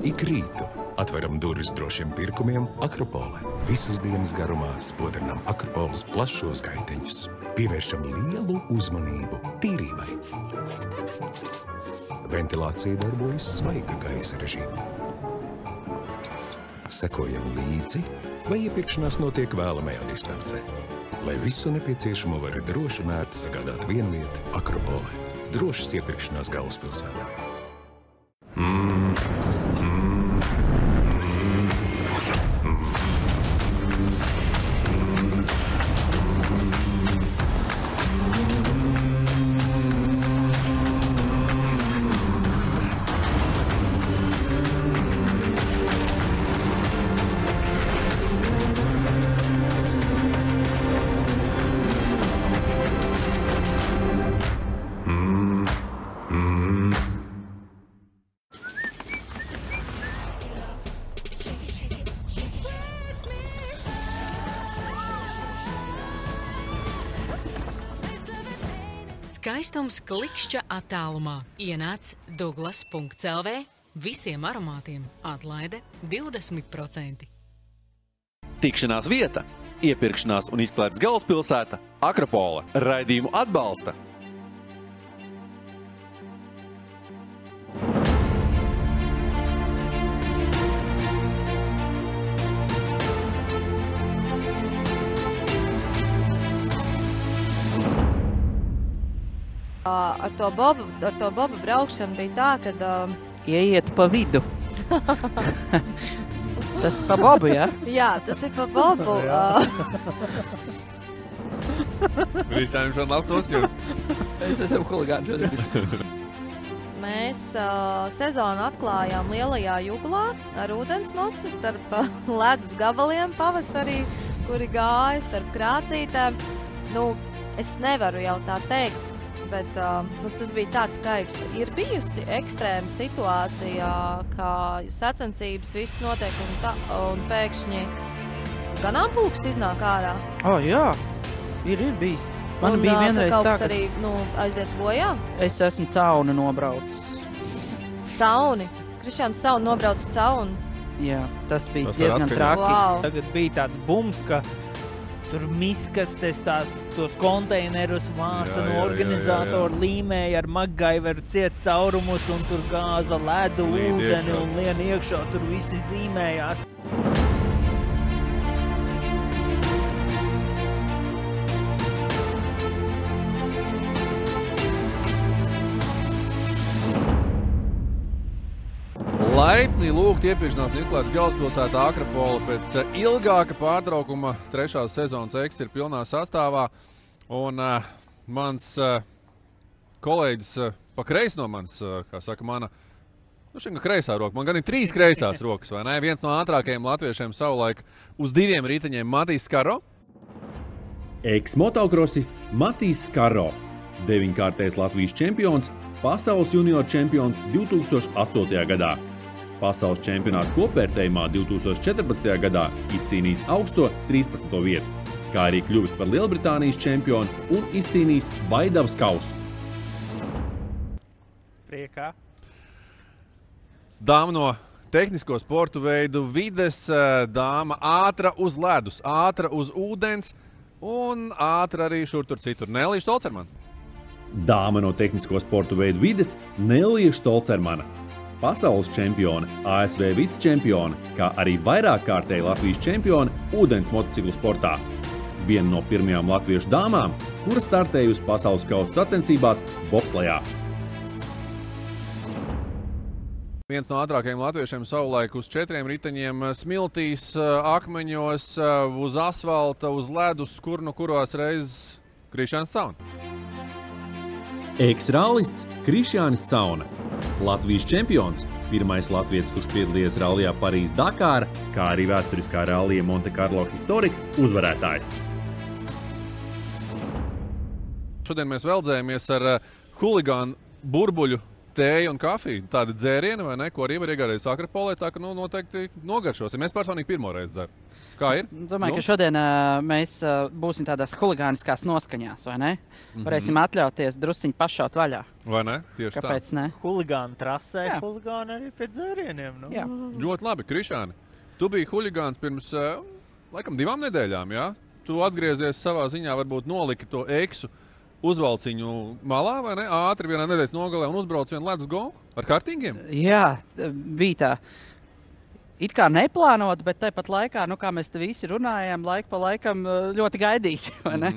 Ik rītu atveram durvis drošiem pirkumiem Akropole. Visas dienas garumā spodrinām Akropoles plašos gaiteņus. Pievēršam lielu uzmanību tīrībai. Ventilācija darbojas svaiga gaisa režīmā. Sekojam līdzi, vai iepirkšanās notiek vēlamajā distancē. Lai visu nepieciešamo var droši un ērti sagādāt vienvieta Akropolē. Drošas iepirkšanās galvaspilsētā. Skaistums klikšķa attālumā. Ienāc Douglas.lv. Visiem aromātiem atlaide 20%. Tikšanās vieta, iepirkšanās un izklaides galvaspilsēta Akropole. Raidījumu atbalsta Ar to bobu braukšanu bija tā, kad... Ieiet pa vidu. Tas pa bobu, jā? Jā, tas ir pa bobu. Visiem šodien labs noskatīt. Es esmu huligāni šodien. Mēs sezonu atklājām Lielajā Juglā ar ūdensmoci starp ledus gabaliem pavasarī, kuri gāja starp krācītēm. Es nevaru jau tā teikt, bet tas bija tāds kaifs. Ir bijusi ekstrēma situācija, kā sacensības viss notiek un pēkšņi ganāmpulks iznāk ārā. Jā, ir bijis. Man bija vienreiz tā, ka... arī aiziet bojā? Es esmu cauni nobraucis. Cauni? Krišjāns Cauni nobraucis cauni? Jā, tas bija diezgan traki. Wow. Tagad bija tāds bums, ka tur miskastes tos konteinerus vāca no organizātoru līmēja ar MacGyveru ciet caurumus un tur gāza ledu, ūdeni un lien iekšā, tur visi zīmējās. Laipni lūgt iepirkšanās un izklaides galvaspilsētā Akropole pēc ilgāka pārtraukuma. Trešās sezonas X ir pilnā sastāvā. Un mans kolēģis pa kreisi no manis, kā saka, mana kreisā roka. Man gan ir 3 kreisās rokas, vai ne? Viens no ātrākajiem latviešiem savulaik uz 2 riteņiem Matīs Skaro. Eks-motocrossists Matīs Skaro, 9-kārtais Latvijas čempions, pasaules junior čempions 2008. gadā. Pasaules čempionāta kopvērtējumā 2014. gadā izcīnījis augsto 13. vietu, kā arī kļuvis par Lielbritānijas čempionu un izcīnījis Vaidavas kausu. Priekā. Dāma no tehnisko sportu veidu vides, dāma ātra uz ledus, ātra uz ūdens un ātra arī šur tur citur. Nelija Štolcermana. Dāma no tehnisko sportu veidu vides Nelija Štolcermana. Pasaules čempione, ASV vicečempione, kā arī vairākkārtēji Latvijas čempione ūdens motociklu sportā. Viena no pirmajām latviešu dāmām, kura startējusi pasaules kausa sacensībās bobslejā. Viens no ātrākajiem latviešiem savulaik uz 4 riteņiem smiltīs, akmeņos, uz asfalta, uz ledus, kuros reizes Krišjāns Cauna. Eks-rallists Krišjānis Cauna. Latvijas čempions, pirmais latvietis, kurš piedalījies rallijā Parīz-Dakāra, kā arī vēsturiskā rallija Monte Carlo Historika uzvarētājs. Šodien mēs veldzējamies ar huligānu burbuļu tēja un kafija. Tādi dzērieni, vai ne, ko arī var iegādāties Akropolē, tā ka noteikti nogaršosim. Es personīgi pirmoreiz dzeru. Kā ir? Domāju, ka šodien mēs būsim tādās huligāniskās noskaņās, vai ne? Varēsim atļauties drusciņi pašaut vaļā. Vai ne? Tieši Kāpēc ne? Huligāni trasē, Jā. huligāni arī pie dzērieniem. Nu. Jā. Ļoti labi, Krišāni. Tu biji huligāns pirms, laikam, 2 nedēļām, jā? Tu atgriezies savā ziņā, varbūt noliki to eksu uzvalciņu malā, vai ne? Ātri vienā nedēļas nogalē un uzbrauc vienu ledus golu ar kartīgiem? Jā, bija tā. It kā neplānot, bet tāpat laikā, kā mēs te visi runājām, laiku pa laikam ļoti gaidīt, vai ne?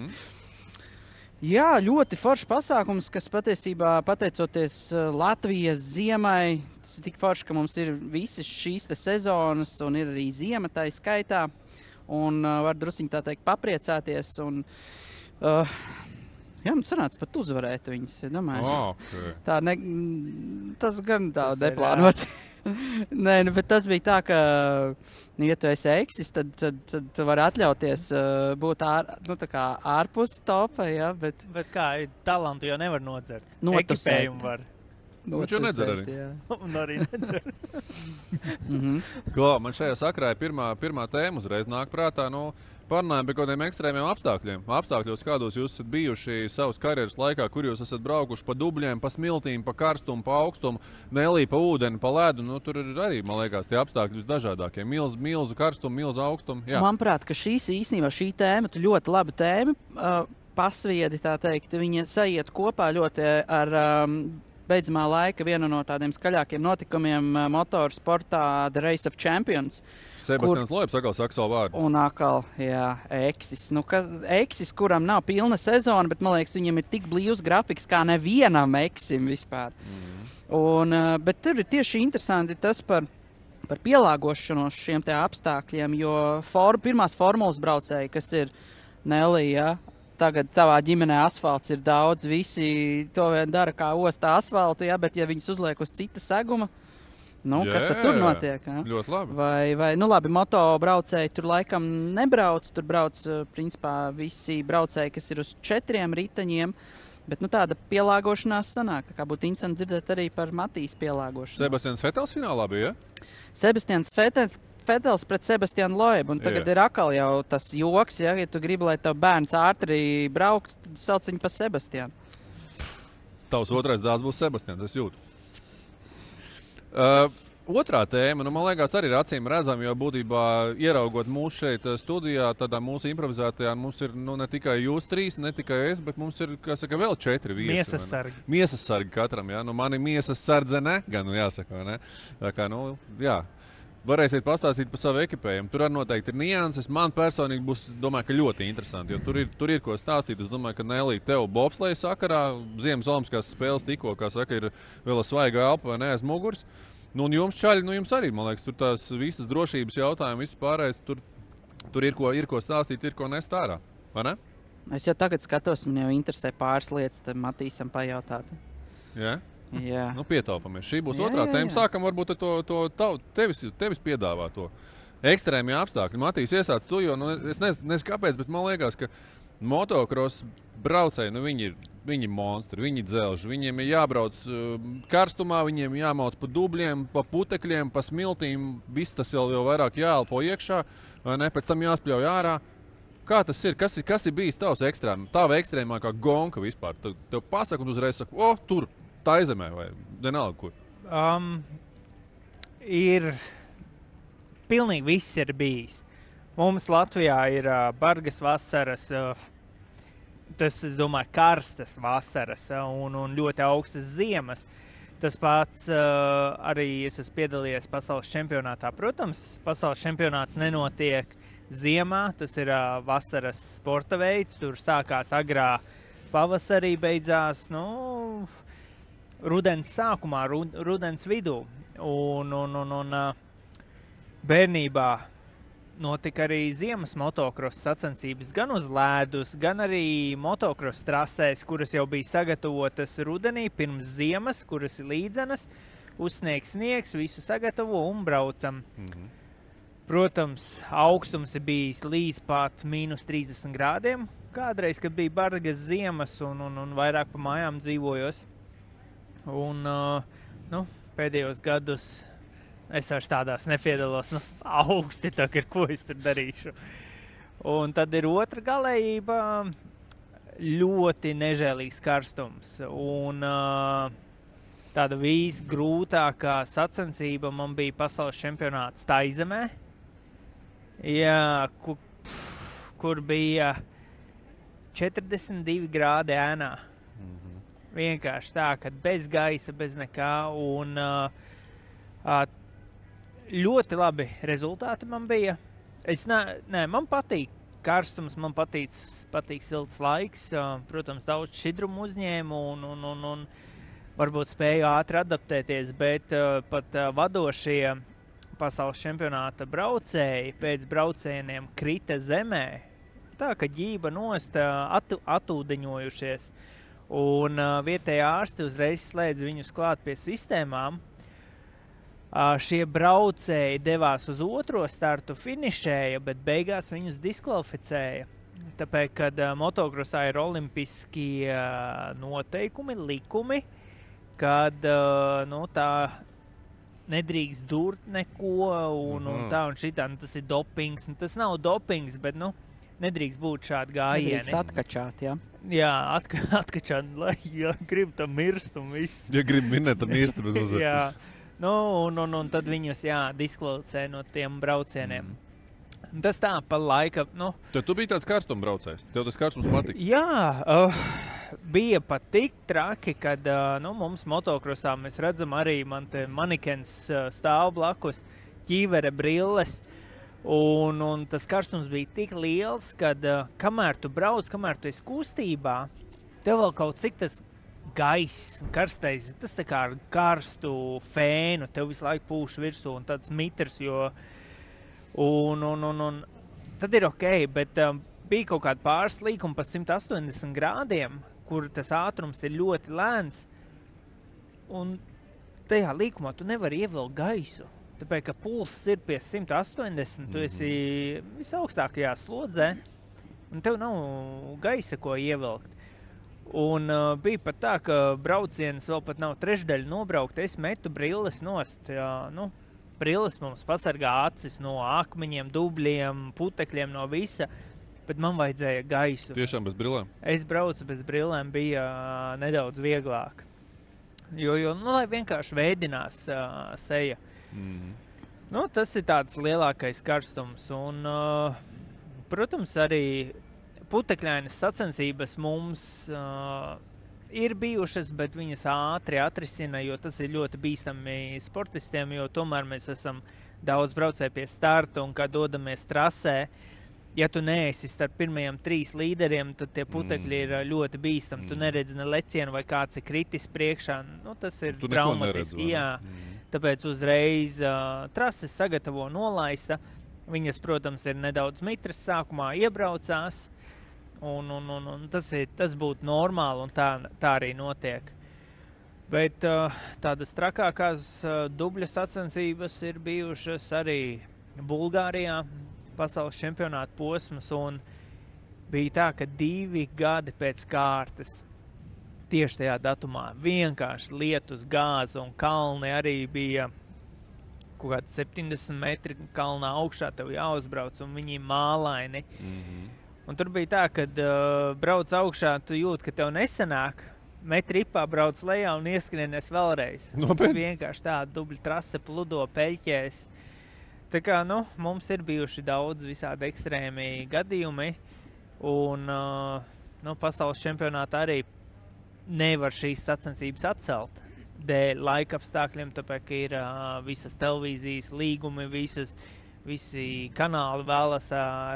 Jā, ļoti foršs pasākums, kas patiesībā, pateicoties Latvijas ziemai, tas ir tik forši, ka mums ir visas šīs te sezonas un ir arī ziema tā skaitā. Un var drusciņi tā teikt papriecāties. Un, jā, man sanāca pat uzvarēt viņas, domāju. Okay. Tā tas gan tā neplānot. Nē, bet tas bija tā, ka, ja tu esi eksis, tad tu vari atļauties būt ārpus topa, ja, bet kā, talantu jau nevar nodzert. Notusēt. Ekipējumu var. Viņš jau nedzer arī. Un arī nedzer. Ko, man šajā sakrā ir pirmā tēma uzreiz nāk prātā, parunājam par kādiem ekstrēmiem apstākļiem. Apstākļos, kādos jūs esat bijuši savas karjeras laikā, kur jūs esat braukuši pa dubļiem, pa smiltīm, pa karstumu, pa augstumu, nelī pa ūdeni, pa ledu. Tur ir arī, man liekas, tie apstākļi visdažādākie. Milzu karstumu, milzu augstumu. Jā. Manuprāt, ka šī tēma, tu ļoti laba tēma, pasviedi, tā teikt, viņa sajiet kopā ļoti ar beidzamā laika vienu no tādiem skaļākiem notikumiem motorsportā The Race of Champions. Sebastians Loebs atkal saka savu vārdu. Un atkal, jā, eksis. Eksis, kuram nav pilna sezona, bet, man liekas, viņam ir tik blīvs grafiks kā nevienam eksim vispār. Bet tur ir tieši interesanti tas par pielāgošanos šiem te apstākļiem, jo pirmās formulas braucēji, kas ir Nelija, tagad tavā ģimenē asfalts ir daudz, visi to vien dara kā ostā asfaltu, ja, bet ja viņus uzliek uz cita seguma, kas tad tur notiek? Ja? Ļoti labi. Vai labi, moto braucēji tur laikam nebrauc, tur brauc principā visi braucēji, kas ir uz 4 riteņiem, bet tāda pielāgošanās sanāk. Tā kā būtu interesanti dzirdēt arī par Matīs pielāgošanos. Sebastians Vetels finālā bija, ja? Sebastians Vetels pret Sebastianu Loebu, un tagad ir atkal jau tas joks, ja tu gribi, lai tev bērns ātri braukt, tad sauc viņu pa Sebastianu. Tavs otrais dēls būs Sebastians, es jūtu. Otrā tēma, man liekas, arī ir acīm redzama, jo būtībā ieraugot mūsu šeit studijā, tādā mūsu improvizētajā, mums ir ne tikai jūs 3, ne tikai es, bet mums ir, kā saka, vēl 4 viesi. Miesas sargi. Miesas sargi katram, jā. Mani miesas sardzene, gan jāsaka, vai ne? Tā kā, jā. Varēsiet pastāstīt par savu ekipējumu. Tur arī noteikti ir nianses. Man personīgi būs, domāju, ka ļoti interesanti, jo tur ir ko stāstīt. Es domāju, ka Nelī, tev bobsleja sakarā, Ziemas olimpiskās spēles tikko, kā saka, ir vēl svaiga elpa vai ne aiz muguras. Un jums čaļi, jums arī, man liekas, tur tās visas drošības jautājumi, viss pārējais, tur ir ko stāstīt, ir ko nest ārā, vai ne? Es jau tagad skatos, man jau interesē pāris lietas, tad Matīsam pajautāt. Jā? Jā. Pietaupamies. Šī būs otrā tēma. Sākam varbūt to tevis piedāvā to ekstrēmie apstākļi. Matīs, iesāc tu, jo es nezinu kāpēc, bet man liekas, ka motocross braucēji, viņi ir monstri, viņi dzelži, viņiem ir jābrauc karstumā, viņiem jāmauc pa dubļiem, pa putekļiem, pa smiltīm, viss tas jau vairāk jāelpo iekšā, vai ne, pēc tam jāspļauj ārā. Kā tas ir? Kas ir bijis tavs tava ekstrēmākā gonka vispār? Tev pasaka un uzreiz saka, tur, Taizemē vai vienalga kur? Ir pilnīgi viss ir bijis. Mums Latvijā ir bargas vasaras, tas, es domāju, karstas vasaras un ļoti augstas ziemas. Tas pats arī es esmu piedalījies pasaules čempionātā. Protams, pasaules čempionāts nenotiek ziemā, tas ir vasaras sporta veids, tur sākās agrā pavasarī, beidzās, rudens sākumā, rudens vidū. Un bērnībā notika arī ziemas motocross sacensības gan uz ledus, gan arī motocross trasēs, kuras jau bija sagatavotas rudenī pirms ziemas, kuras ir līdzenas, uzsniegs sniegs, visu sagatavo un braucam. Protams, augstums ir bijis līdz pat -30 grādiem. Kādreiz, kad bija bargas ziemas un vairāk pa mājām dzīvojos. Un, pēdējos gadus es vairs tādās nepiedalos. Augsti tagad, ko es tur darīšu. Un tad ir otra galējība, ļoti nežēlīgs karstums. Un tāda visgrūtākā sacensība man bija pasaules čempionāts Taizemē. Jā, kur bija 42 grādi ēnā. Vienkārši tā, ka bez gaisa, bez nekā. Un ļoti labi rezultāti man bija. Man patīk karstums, man patīk silts laiks. Protams, daudz šķidrumu uzņēmu un varbūt spēju ātri adaptēties, bet pat vadošie pasaules čempionāta braucēji pēc braucieniem krita zemē. Tā, ka ģība nost atūdeņojušies. Un vietējā ārsti uzreiz slēdz viņus klāt pie sistēmām. Šie braucēji devās uz otro startu, finišēja, bet beigās viņus diskvalificēja. Tāpēc, kad motokrosā ir olimpiskie noteikumi, likumi, kad tā nedrīkst durt neko un tā un šitā, tas ir dopings. Tas nav dopings, bet nedrīkst būt šādi gājieni. Nedrīkst atkačāt, jā. Jā, atkačāt, lai grib tam mirst un viss. Ja grib minēt, tad mirst. Jā, un tad viņus, diskvalificē no tiem braucieniem. Tas tā, pa laika, Tad tu biji tāds karstuma braucējs? Tev tas karstums patika? Jā, bija pat tik traki, kad mums motokrosā mēs redzam arī man te manikens stāv blakus, ķīvere brilles, un tas karstums bija tik liels, kad kamēr tu brauc, kamēr tu esi kustībā, tev vēl kaut cik tas gaiss, karstais, tas tā kā ar karstu fēnu, tev visu laiku pūš virsū un tāds mitrs, jo un tad ir ok, bet bija kaut kāda pāris līkuma pa 180 grādiem, kur tas ātrums ir ļoti lēns, un tajā līkumā tu nevari ievilkt gaisu. Tāpēc, ka pulss ir pie 180, tu esi visaugstākajā slodzē, un tev nav gaisa, ko ievilkt. Un bija pat tā, ka brauciens vēl pat nav trešdaļa nobraukt, es metu brilles nost, brilles mums pasargā acis no akmeņiem, dubļiem, putekļiem, no visa, bet man vajadzēja gaisu. Tiešām bez brillēm? Es braucu bez brillēm, bija nedaudz vieglāk. Jo lai vienkārši veidinās seja. Tas ir tāds lielākais karstums. Un, protams, arī putekļainas sacensības mums ir bijušas, bet viņas ātri atrisina, jo tas ir ļoti bīstami sportistiem, jo tomēr mēs esam daudz braucēji pie starta, un kad dodamies trasē, ja tu neesi starp pirmajiem 3 līderiem, tad tie putekļi ir ļoti bīstami. Tu neredzi ne lecienu vai kāds ir kritis priekšā. Tas ir traumatiski. Jā. Tāpēc uzreiz trases sagatavo nolaista. Viņas, protams, ir nedaudz mitras sākumā iebraucās. Un tas būtu normāli, un tā arī notiek. Bet tādas trakākās dubļa sacensības ir bijušas arī Bulgārijā, pasaules čempionāta posmas, un bija tā, ka 2 gadi pēc kārtas tieši tajā datumā vienkārši lietus gāza, un kalni arī bija kaut kādi 70 metri kalnā augšā, tev jāuzbrauc, un viņi mālaini. Un tur bija tā, kad brauc augšā, tu jūt, ka tev nesanāk, met ripā, brauc lejā un ieskrienies vēlreiz. Vienkārši tā dubļa trase pludo peļķēs. Tā kā, mums ir bijuši daudz visādi ekstrēmi gadījumi, un pasaules čempionātā arī nevar šīs sacensības atcelt dēļ laika apstākļiem, tāpēc, ka ir visas televīzijas līgumi, visi kanāli vēlas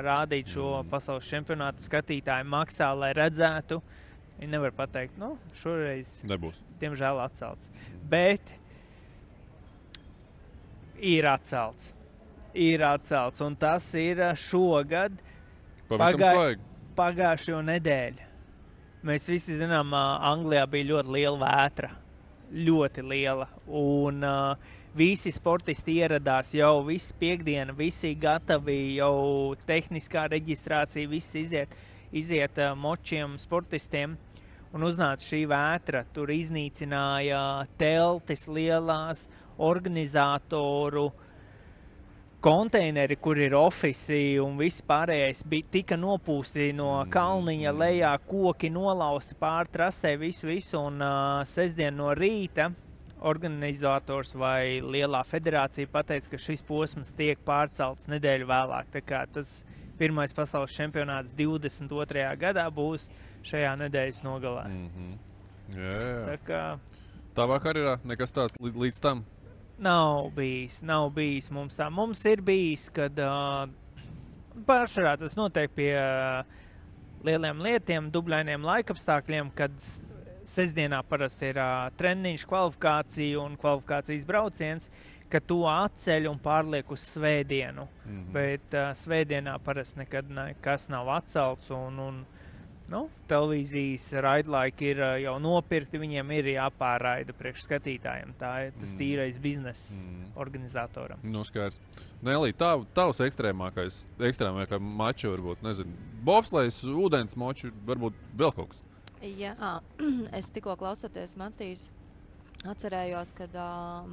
rādīt šo pasaules čempionātu, skatītāji maksā, lai redzētu. Viņi nevar pateikt, šoreiz nebūs. Diemžēl atcelts. Bet ir atcelts. Un tas ir šogad pagājušo nedēļu. Mēs visi zinām, Anglijā bija ļoti liela vētra. Ļoti liela. Un visi sportisti ieradās jau visu piekdienu, visi gatavi, jau tehniskā reģistrācija, viss iziet močiem sportistiem. un uznāca šī vētra. Tur iznīcināja teltis lielās, organizatoru konteineri, kur ir ofisi un viss pārējais tika nopūsti no kalniņa lejā, koki nolausti pār trasē, visu, un sestdien no rīta organizators vai lielā federācija pateica, ka šis posms tiek pārcelts nedēļu vēlāk. Tā kā tas pirmais pasaules čempionāts 22. gadā būs šajā nedēļas nogalē. Jā. Tā kā Tavā karjerā nekas tāds līdz tam? Nav bijis mums tā. Mums ir bijis, kad pārsvarā tas notiek pie lieliem lietiem, dubļainiem laikapstākļiem, kad sestdienā parasti ir treniņš, kvalifikācija un kvalifikācijas brauciens, ka to atceļ un pārliek uz svētdienu. Bet svētdienā parasti nekad nekas nav atcelts un televīzijas raidlaiki ir jau nopirkti, viņiem ir jāpārraida priekš skatītājiem. Tā ir tas tīrais bizness organizatoram. Skaidrs. Nelī, tavs ekstrēmākais maču varbūt, nezinu, bobslejs, ūdens moču, varbūt vēl kaut kas. Jā, es tikko klausoties Matīs, atcerējos, kad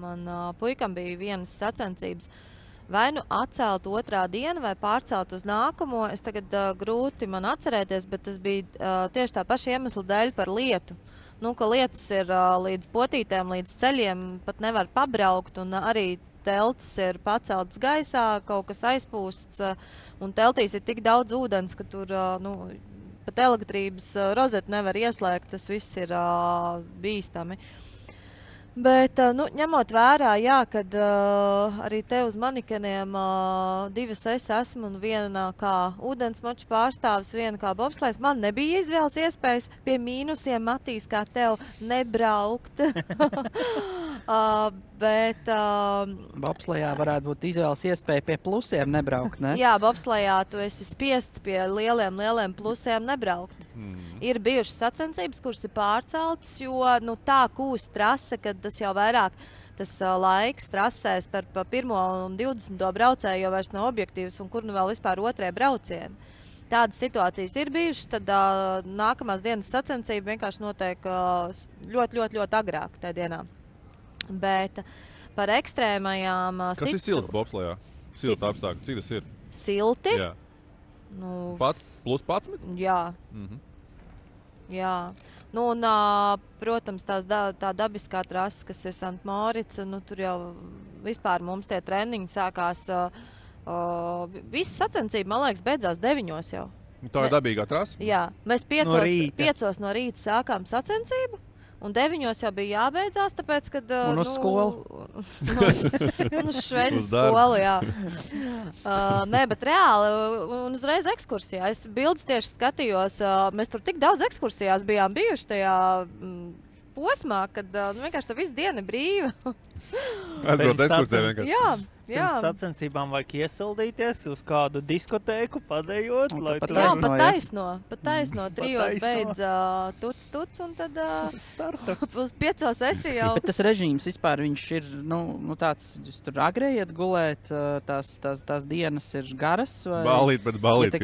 man puikam bija vienas sacensības vai nu atcelt otrā diena vai pārcelt uz nākamo. Es tagad grūti man atcerēties, bet tas bija tieši tā paša iemesla dēļ par lietu. Ka lietus ir līdz potītēm, līdz ceļiem, pat nevar pabraukt, un arī teltis ir paceltas gaisā, kaut kas aizpūsts, un teltīs ir tik daudz ūdens, ka tur, pat elektrības rozeti nevar ieslēgt, tas viss ir bīstami. Bet, ņemot vērā, jā, kad arī te uz manikeniem divas es esmu un viena kā ūdensmaču pārstāvis, viena kā bobslejs, man nebija izvēles iespējas pie mīnusiem, Matīs, kā tev nebraukt. Bet bobslejā varētu būt izvēles iespēja pie plusiem nebraukt, ne? Jā, bobslejā tu esi spiests pie lieliem plusiem nebraukt. Ir bijušas sacensības, kuras ir pārceltas, jo tā kūst trase, kad tas jau vairāk tas laiks trasē starp 1. un 20. braucēju jau vairs nav objektīvs, un kur vēl vispār otrie braucieni. Tādas situācijas ir bijušas, tad nākamās dienas sacensība vienkārši notiek ļoti agrāk tajā dienā. Bet par ekstrēmajām... Kas ir silts bobslejā? Silta apstākļi, cik tas ir? Silti? Jā. Pat plus 11? Jā. Jā. Un, protams, tā dabiskā trasa, kas ir Sant Morica, tur jau vispār mums tie treniņi sākās, visas sacensība, man liekas, beidzās 9 jau. Tā ir dabīgā trasa? Jā, mēs 5 no rīta sākām sacensību. Un 9 jau bija jābeidzās, tāpēc, kad... Un uz skolu. Un uz šveicas skolu, jā. Nē, bet reāli, un uzreiz ekskursijā. Es bildes tieši skatījos, mēs tur tik daudz ekskursijās bijām bijuši tajā posmā, kad vienkārši tā visu diena ir brīva. Aizbraukt ekskursijā vienkārši. Jā. Pirms sacensībām vajag iesildīties uz kādu diskotēku, padējot. Pat taisno. 3 beidz tuc, un tad uz 5 esi jau. Bet tas režīms vispār, viņš ir, tāds, jūs tur agrē iet gulēt, tās dienas ir garas? Vai? Ballīt pēc ballīt.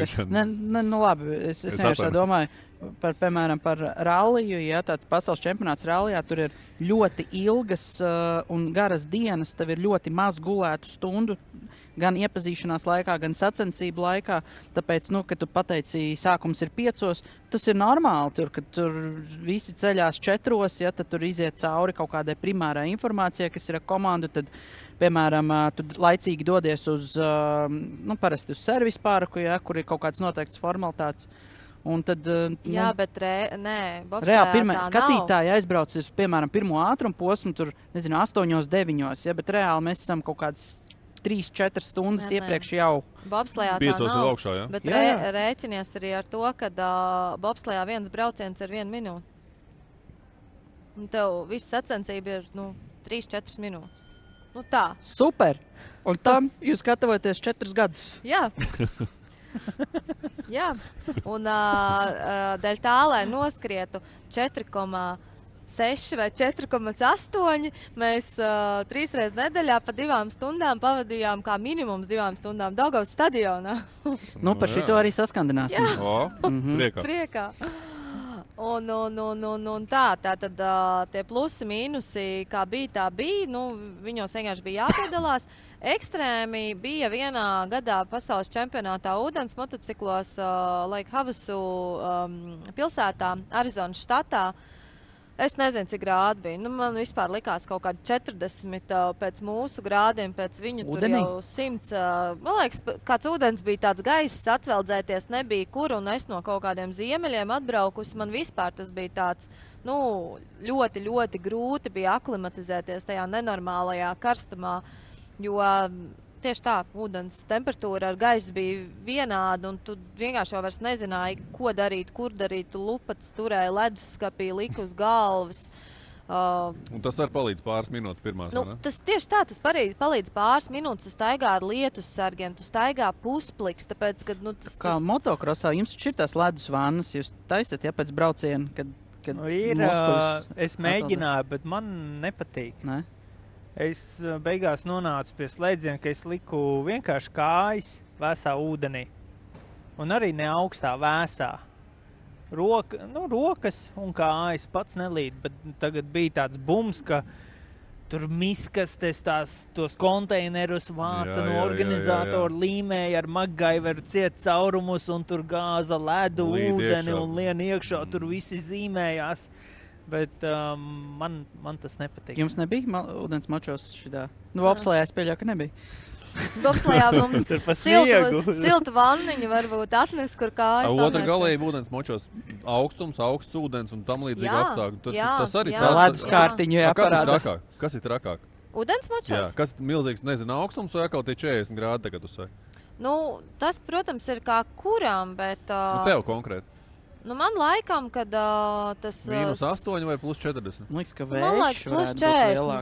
Labi, es vienkārši domāju. Piemēram, par ralliju, ja tāds pasaules čempionāts rallijā, tur ir ļoti ilgas un garas dienas, tev ir ļoti maz gulētu stundu, gan iepazīšanās laikā, gan sacensību laikā, tāpēc, kad tu pateici, sākums ir 5, tas ir normāli, kad tur visi ceļās 4, ja, tad tur iziet cauri kaut kādai primārai informācijai, kas ir ar komandu, tad, piemēram, tu laicīgi dodies uz, parasti uz servisu parku, ja, kur ir kaut kāds noteikts formalitātes. Un tad, bet reāli skatītāji aizbrauc uz, piemēram, 1. ātrumu posmu, tur, 8, 9, ja, bet reāli mēs esam kaut kādas 3-4 stundas iepriekš jau. Bobslejā tā nav, augšā, ja? Bet rēķinies arī ar to, ka bobslejā viens brauciens ir 1 minūte. Un tev viss sacensība ir 3-4 minūtes. Tā. Super! Un tam jūs gatavojaties 4 gadus. Jā. Jā, un dēļ tā, lai noskrietu 4,6 vai 4,8, mēs 3 reizes nedēļā pa 2 stundām pavadījām kā minimums 2 stundām Daugavas stadionā. Par šito arī saskandināsim. Priekā. Un tā tad tie plusi, mīnusi, kā bija, tā bija. Viņos vienkārši bija jāpiedalās. Ekstrēmi bija vienā gadā pasaules čempionātā ūdens motociklos Lake Havasu pilsētā, Arizonas štatā. Es nezinu, cik grādi bija. Man vispār likās kaut kādi 40 pēc mūsu grādiem, pēc viņu Udenī? tur jau 100. Man liekas, kāds ūdens bija tāds gaiss, atveldzēties nebija kur, un es no kaut kādiem ziemeļiem atbraukusi. Man vispār tas bija tāds, ļoti, ļoti grūti bija aklimatizēties tajā nenormālajā karstumā, jo tieši tā, ūdens temperatūra ar gaisu bija vienāda, un tu vienkārši jau vairs nezināji, ko darīt, kur darīt. Tu lupats turēji leduskapī, lika uz galvas. Un tas var palīdz pāris minūtes pirmās, vai ne? Tas tieši tā, tas palīdz pāris minūtes. Tu staigā ar lietus sargiem, tu staigā puspliks, tāpēc, ka, Kā motokrosā, jums ir tās ledus vannas, jūs taisat, ja pēc brauciena, kad muskuļus es mēģināju, bet man nepatīk. Ne? Es beigās nonācu pie slēdziena, ka es liku vienkārši kājas vēsā ūdenī. Un arī ne augstā vēsā. Rokas un kājas pats nelīd, bet tagad bija tāds bums, ka tur miskastes tos konteinerus vāca no organizātoru līmēja ar MacGyveru ciet caurumus un tur gāza ledu, ūdeni un lien iekšā, tur visi zīmējās. Bet man tas nepatīk. Jums nebija ūdens mačos šitā? Bobslējā es pieļauju, ka nebija. Bobslējā mums siltu vanniņu varbūt atnes, kur kājas. Otra galēja ūdens mačos augstums, augsts ūdens un tam līdzīgi apstākļi. Tas arī tā. Ledus kārtiņu jāparāda. Kas ir trakāk? Ūdens mačos? Jā, kas ir milzīgs, nezinu, augstums vai atkal tie 40 grādi tagad uzsver? Tas, protams, ir kā kuram, bet... Tev konkrēti. Man laikam, kad tas... -8 vai +40? Man liekas, ka man liekas, +40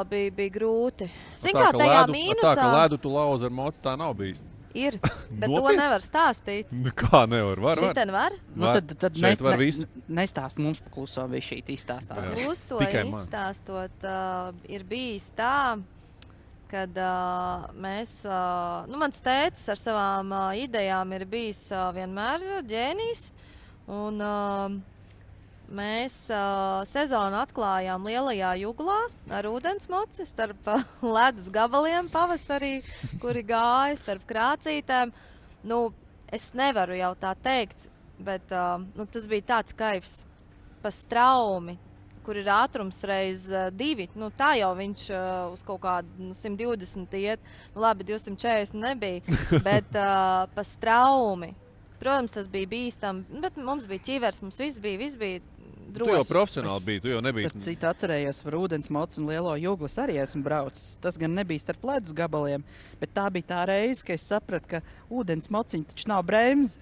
bija grūti. Zin kā tajā mīnusā... Tā, ka ledu tu lauzi ar mocu, tā nav bijis. Ir, bet to nevar stāstīt. Kā nevar? Var. Šiten var? Tad var visu. Nestāst mums pakluso bija šī izstāstāt. Pakluso izstāstot ir bijis tā, kad mēs... mans tētis ar savām idejām ir bijis vienmēr ģēnijs. Un mēs sezonu atklājām Lielajā Juglā ar ūdensmoci starp ledus gabaliem pavasarī, kuri gāja starp krācītēm. Es nevaru jau tā teikt, bet tas bija tāds kaifs pa straumi, kur ir ātrums reiz 2. Tā jau viņš uz kaut kādu 120 iet. Labi, 240 nebija, bet pa straumi. Protams, tas bija bīstam, bet mums bija ķivers, mums viss bija droši. Tu jau profesionāli biji, tu jau nebija. Es citu atcerējos par ūdensmocu un Lielo Juglu arī esmu braucis. Tas gan nebija starp ledus gabaliem, bet tā bija tā reize, ka es sapratu, ka ūdensmociņi taču nav bremzi.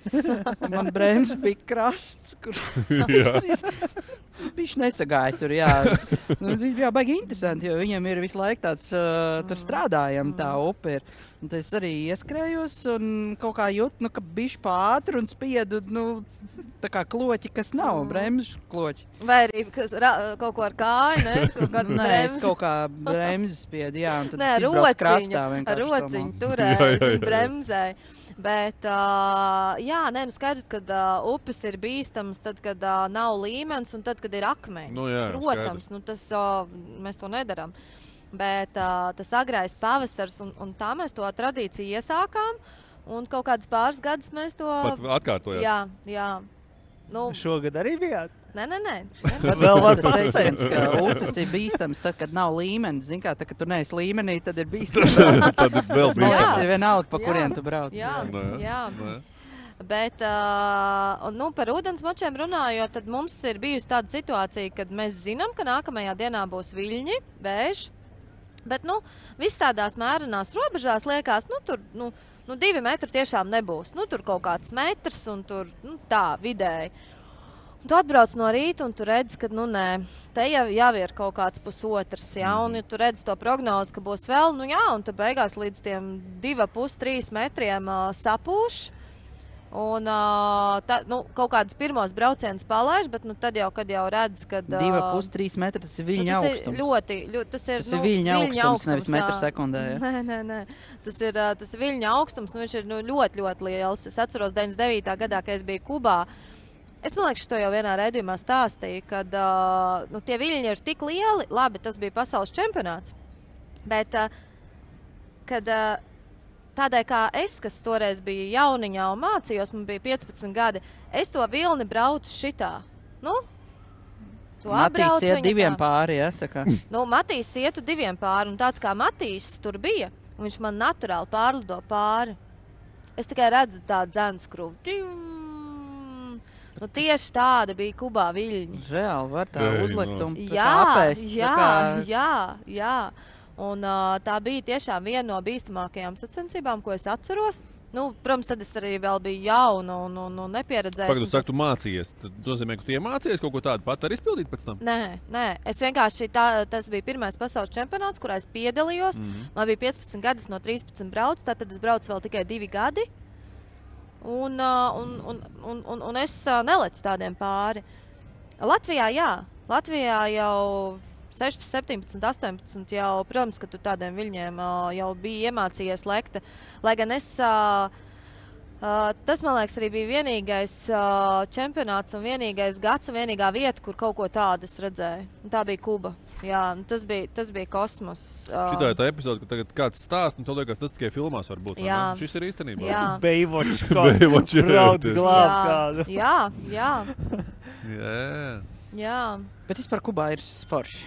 Man bremzi bija krasts, kur viņš nesagāja tur, jā. Jā, baigi interesanti, jo viņam ir visu laiku tāds, tur strādājam, tā upe ir. Un tad es arī ieskrējos un kaut kā jūtu, ka bišķi pātri un spiedu, tā kā kloķi, kas nav, bremžu kloķi. Vai arī kaut ko ar kāju, ne? Nē, es kaut kā bremzi spiedu, jā, un tad es izbraucu krastā vienkārši. Ar rociņu turēju, bremzēju. Bet, skaidrs, kad upes ir bīstams, tad, kad nav līmenis un tad, kad ir akmeņi. Protams, tas mēs to nedaram. Bet tas agrais pavasars, un tā mēs to tradīciju iesākām, un kaut kāds pāris gadus mēs to... Pat atkārtojāt? Jā. Šogad arī bijāt? Nē. Vēl var tas teiciens, ka upes ir bīstams tad, kad nav līmenis. Zin kā, tad, kad tu neesi līmenī, tad ir bīstams. Tad ir vēl bīstams. Tas ir vienalga, pa kurien tu brauc. Jā. Bet par ūdensmočiem runājot, tad mums ir bijusi tāda situācija, kad mēs zinām, ka nākamajā dienā būs viļņi, vējš. Bet, viss tādās mērenās robežās liekas, tur 2 metri tiešām nebūs. Tur kaut kāds metrs un tur tā vidēji. Tu atbrauc no rīta un tu redzi, ka nē, te jau ir kaut kāds pusotrs, ja, un ja tu redzi to prognozi, ka būs vēl, un tad beigās līdz tiem 2,5–3 metriem sapūš. Un kaut kādus pirmos braucienus palaiž, bet tad jau, kad jau redz, kad... 2,5–3 metri, tas ir viļņa augstums. Tas ir viļņa augstums, nevis metru sekundē. Ja? Nē. Tas ir viļņa augstums, viņš ir ļoti, ļoti liels. Es atceros 99. gadā, kad es biju Kubā, Es man liekas, to jau vienā raidījumā stāstīju, kad tie viļņi ir tik lieli. Labi, tas bija pasaules čempionāts. Bet, kad tādēļ kā es, kas toreiz bija jauniņā un mācījos, man bija 15 gadi, es to vilni braucu šitā. Nu, Matīs iet 2 pāri, ja? Matīs ietu 2 pāri, un tāds kā Matīs tur bija, un viņš man naturāli pārlido pāri. Es tikai redzu tādu dzenskrūvu. Tieši tāda bija Kubā viļņi. Reāli var tā uzlikt un apēst. Jā. Un tā bija tiešām viena no bīstamākajām sacensībām, ko es atceros. Protams, tad es arī vēl biju jauna un nepieredzējusi. Pagad, tu saki, tu mācījies. Tad nozīmē, ka tu iemācījies kaut ko tādu pat arī izpildīt pēc tam? Nē. Es vienkārši tas bija pirmais pasaules čempionāts, kurā es piedalījos. Man bija 15 gadi, no 13 braucu, tad es braucu vēl tikai 2 gadi. Un es nelecu tādiem pāri. Latvijā, jā. Latvijā jau 16, 17, 18 jau, protams, ka tu tādiem viļņiem jau bija iemācījies lekt. Lai gan es, tas, man liekas, arī bija vienīgais čempionāts un vienīgais gads un vienīgā vieta, kur kaut ko tādu es redzēju. Tā bija Kuba. Jā, tas bija kosmos. Šitā ir tā epizode, ka tagad kāds stāst, un to liekas, tas tikai filmās var būt. Jā. Šis ir īstenībā. Jā. Baywatch. Brauc glāb kādu. Jā. Jā. Bet vispār Kubā ir forši.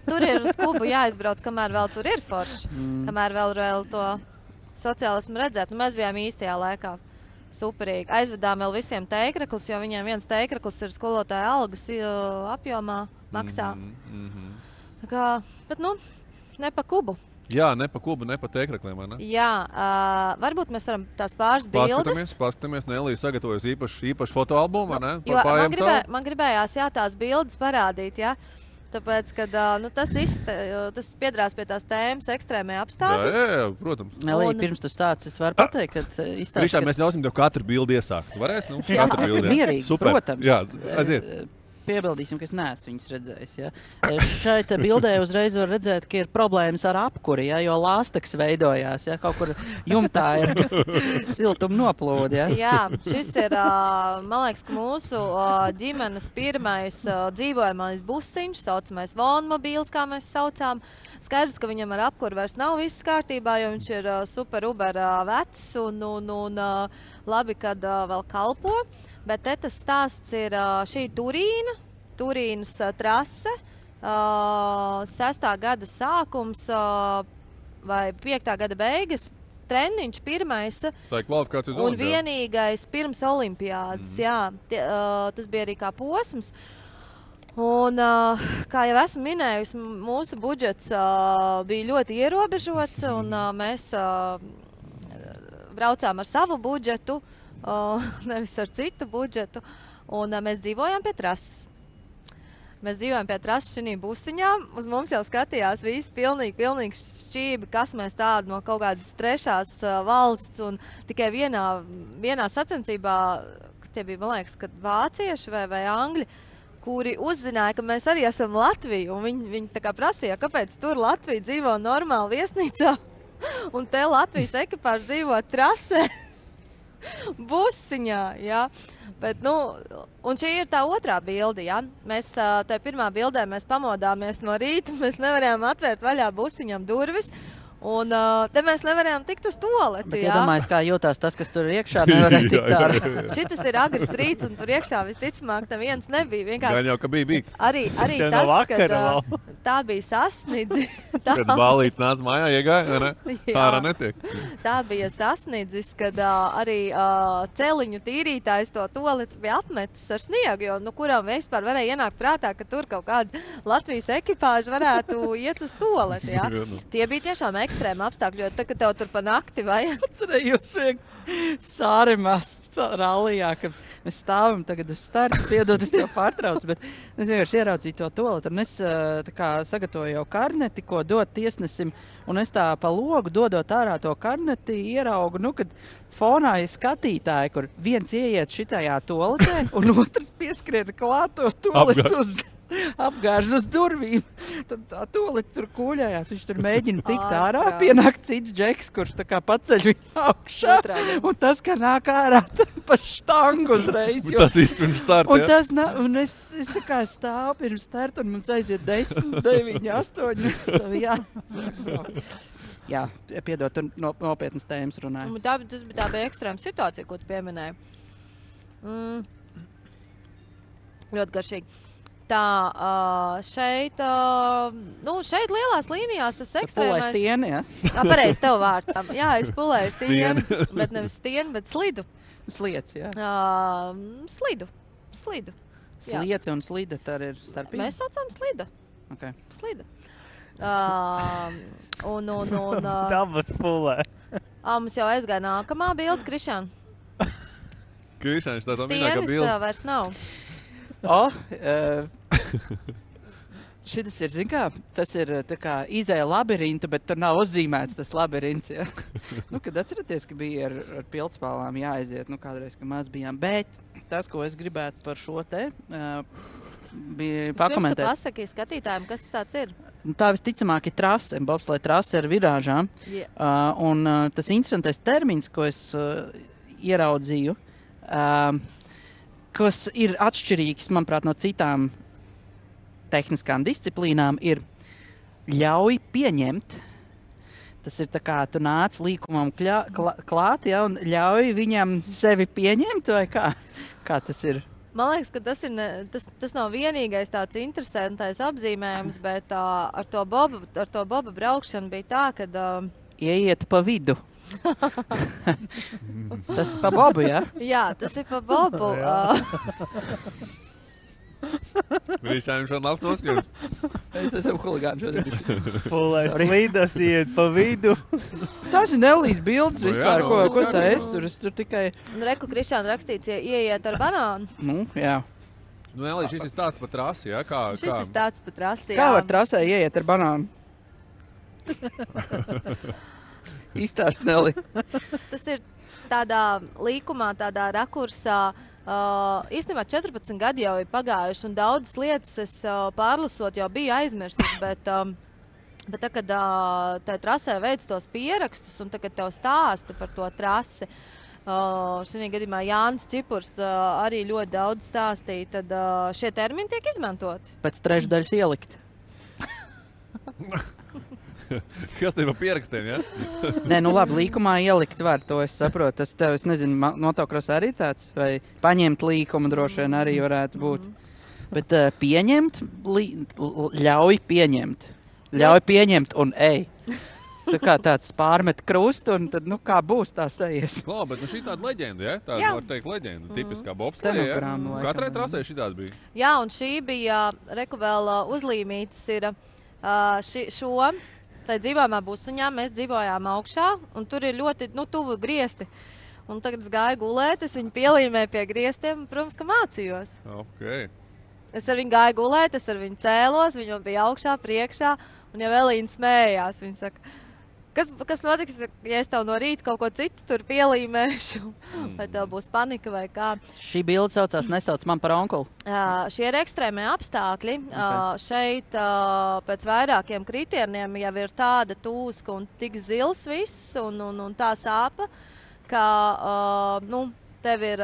Tur ir uz Kubu jāizbrauc, kamēr vēl tur ir forši. Kamēr vēl to sociālismu redzēt. Mēs bijām īstajā laikā. Superīgi. Aizvedām vēl visiem teikraklis, jo viņiem viens teikraklis ir skolotāja algas apjomā maksā. Bet, ne pa Kubu. Jā, ne pa Kubu, ne pa teikrekliem, vai ne? Jā, varbūt mēs varam tās pāris bildes. Paskatāmies, Nelija sagatavojas īpašu fotoalbumu, vai ne? Jo man gribējās, tās bildes parādīt, jā. Tāpēc, kad tas piedrās pie tās tēmas ekstrēmie apstākļi. Jā, protams. Nelija, pirms tu stāc, es varu pateikt, ka izstāst, Priekšā mēs ļausim tev katru bildi iesākt. Varēs, katru bildi. Mierīgi, super. Protams. Jā, aiziet. Piebildīsim, ka es neesmu viņas redzējis. Ja? Šeit bildē uzreiz var redzēt, ka ir problēmas ar apkuri, ja? Jo lāsteks veidojās. Ja? Kaut kur jumtā ir siltuma noplūde. Ja? Jā, šis ir, man liekas, ka mūsu ģimenes pirmais dzīvojamais busiņš, saucamais vonmobīls, kā mēs saucām. Skaidrs, ka viņam ar apkuri vairs nav viss kārtībā, jo viņš ir super uber vecs un labi, kad vēl kalpo. Bet tas stāsts ir šī Turīnas trase, 6. gada sākums vai 5. gada beigas, treniņš pirmais Tā ir kvalifikācijas un vienīgais pirms olimpiādas. Jā, tas bija arī kā posms. Un, kā jau esmu minējusi, mūsu budžets bija ļoti ierobežots un mēs braucām ar savu budžetu. Nevis ar citu budžetu, un mēs dzīvojām pie trases. Mēs dzīvojām pie trases šī busiņā, uz mums jau skatījās visi pilnīgi šķībi, kas mēs tādi no kaut kādas trešās valsts, un tikai vienā sacensībā, tie bija, man liekas, kad vācieši vai angļi, kuri uzzināja, ka mēs arī esam Latvija, un viņi tā kā prasīja, kāpēc tur Latvija dzīvo normāli viesnīcā, un te Latvijas ekipāžu dzīvo trasē. Busiņā, jā. Bet, un šī ir tā otrā bilde, jā. Mēs, tajā pirmā bildē mēs pamodāmies no rīta, mēs nevarējām atvērt vaļā busiņam durvis, un te mēs nevarējām tikt uz toaleti, bet jā. iedomājies, kā jūtās tas, kas tur iekšā, nevarēja tikt ārā. Šitas ir agrs rīts, un tur iekšā visticamāk neviens nebija. Vienkārši Gan jau, ka bija. Arī tas, kad tā bija sasnidzi. Kad bālīts nāca mājā, iegāja, vai ne? Ārā netiek. Tā bija sasniedzis, kad arī celiņu tīrītājs to toaleti bija apmetis ar sniegu, jo kuram vispār varēja ienākt prātā, ka tur kaut kāda Latvijas ekipāža varētu iet uz toaleti. Jā. Tie bija tiešām ekstrēmi apstākļi, jo tad, kad tev tur pa nakti vajag. Atcerējos Sārimās rallijā, kad mēs stāvam tagad uz starta, piedod, es tev pārtraucu, bet es vienkārši ieraudzīju to toaletu, un es tā kā sagatavoju jau karneti, ko dot tiesnesim, un es tā pa logu dodot ārā to karneti, ieraugu, kad fonā ir skatītāji, kur viens ieiet šitajā toaletē, un otrs pieskrien klāt to toaletu uz apgāž uz durvīm. Tad tā toleti tur kūļājās. Viņš tur mēģina tikt ārā. Pienāk cits džeks, kurš tā kā paceļ viņu augšā. Un tas, ka nāk ārā pa štangu uzreiz. Tas viss pirms starta, un tas, un es tā kā stāvu pirms starta, un mums aiziet 10, 9, 8. Jā, piedod, tur nopietnas tēmas runāja. Tas bija tā ekstrēma situācija, ko tu pieminēji. Ļoti garšīgi. Tā, šeit lielās līnijās tas ekstrēmais... Pulēs stieni, jā? Pareizi, tev vārds. Jā, es pulēju stieni, bet nevis stieni, bet slidu. Sliec, jā. Slidu. Sliece un slida, tā ir starpība? Mēs saucam slida. Okay. Slida. Dabas pulē. Mums jau aizgāja nākamā bilde, Krišān. Krišāns, tā minēkā bilde. Stienis vairs nav. Šitas ir, zin kā, tas ir tā kā izēja labirinta, bet tur nav uzzīmēts tas labirints, jā. Kad atceraties, ka bija ar pildspālām jāaiziet, kādreiz, ka maz bijām. Bet tas, ko es gribētu par šo te, bija pakomentēt. Pirms tu pasaki skatītājiem, kas tas tāds ir? Tā visticamāk ir trase, bobslēja trase ar virāžām. Un tas interesantais termins, ko es ieraudzīju, kas ir atšķirīgs, manuprāt, no citām tehniskām disciplīnām, ir ļauj pieņemt. Tas ir tā kā tu nāc līkumam klāt, ja, un ļauj viņam sevi pieņemt, vai kā? Kā tas ir? Man liekas, ka tas nav vienīgais tāds interesantais apzīmējums, bet ar to boba braukšanu bija tā, kad... Ieiet pa vidu. Tas pa bobu, jā? Jā, tas ir pa bobu. Viņš šodien labs noskatījums. Es esmu huligāns šodien. Pulēs slīdas iet pa vidu. Tas ir Nelijas bildes vispār, ko tā es tur tikai... Reku Krišāna rakstīts, ieiet ar banānu. Jā. Nelija, šis ir tāds pa trasi, jā? Šis ir tāds pa trasi, jā. Kā var trasē ieiet ar banānu? Izstāst, Neli. Tas ir tādā līkumā, tādā rakursā. Īstenībā 14 gadi jau ir pagājuši, un daudzas lietas es pārlasot jau biju aizmirsis, bet tā, kad tai trasē veic tos pierakstus, un tagad tev stāsta par to trasi, šajā gadījumā Jānis Cipurs arī ļoti daudz stāstīja, tad šie termini tiek izmantoti. Pēc trešdaļas ielikt. Kas tev pierakstiem, ja? Nē, labi, līkumā ielikt var, to es saprotu. Tas tev, es nezinu, motocross arī tāds, vai paņemt līkumu droši vien arī varētu būt. Bet pieņemt, ļauj pieņemt. Ļauj pieņemt un ej. Kā tāds pārmet krustu, un tad, kā būs tā sajies. Klā, bet šī tāda leģenda, ja? Tā var teikt leģenda, tipiskā bobsleja, ja? Katrai trasē šī tāda bija. Jā, un šī bija, reku vēl uzlīmītas ir šo... Tai dzīvojumā busuņā mēs dzīvojām augšā, un tur ir ļoti tuvu griesti. Un tagad es gāju gulēt, es viņu pielīmēju pie griestiem, un, protams, ka mācījos. Okay. Es ar viņu gāju gulēt, es ar viņu cēlos, viņu bija augšā, priekšā, un jau Elīna smējās. Viņa saka, kas notiks, ja es tev no rīta kaut ko citu tur pielīmēšu? Vai tev būs panika vai kā? Šī bilde saucās nesauc man par onkuli. Šie ir ekstrēmie apstākļi. Šeit pēc vairākiem kritieniem jau ir tāda tūska un tik zils viss un tā sāpa, ka tev ir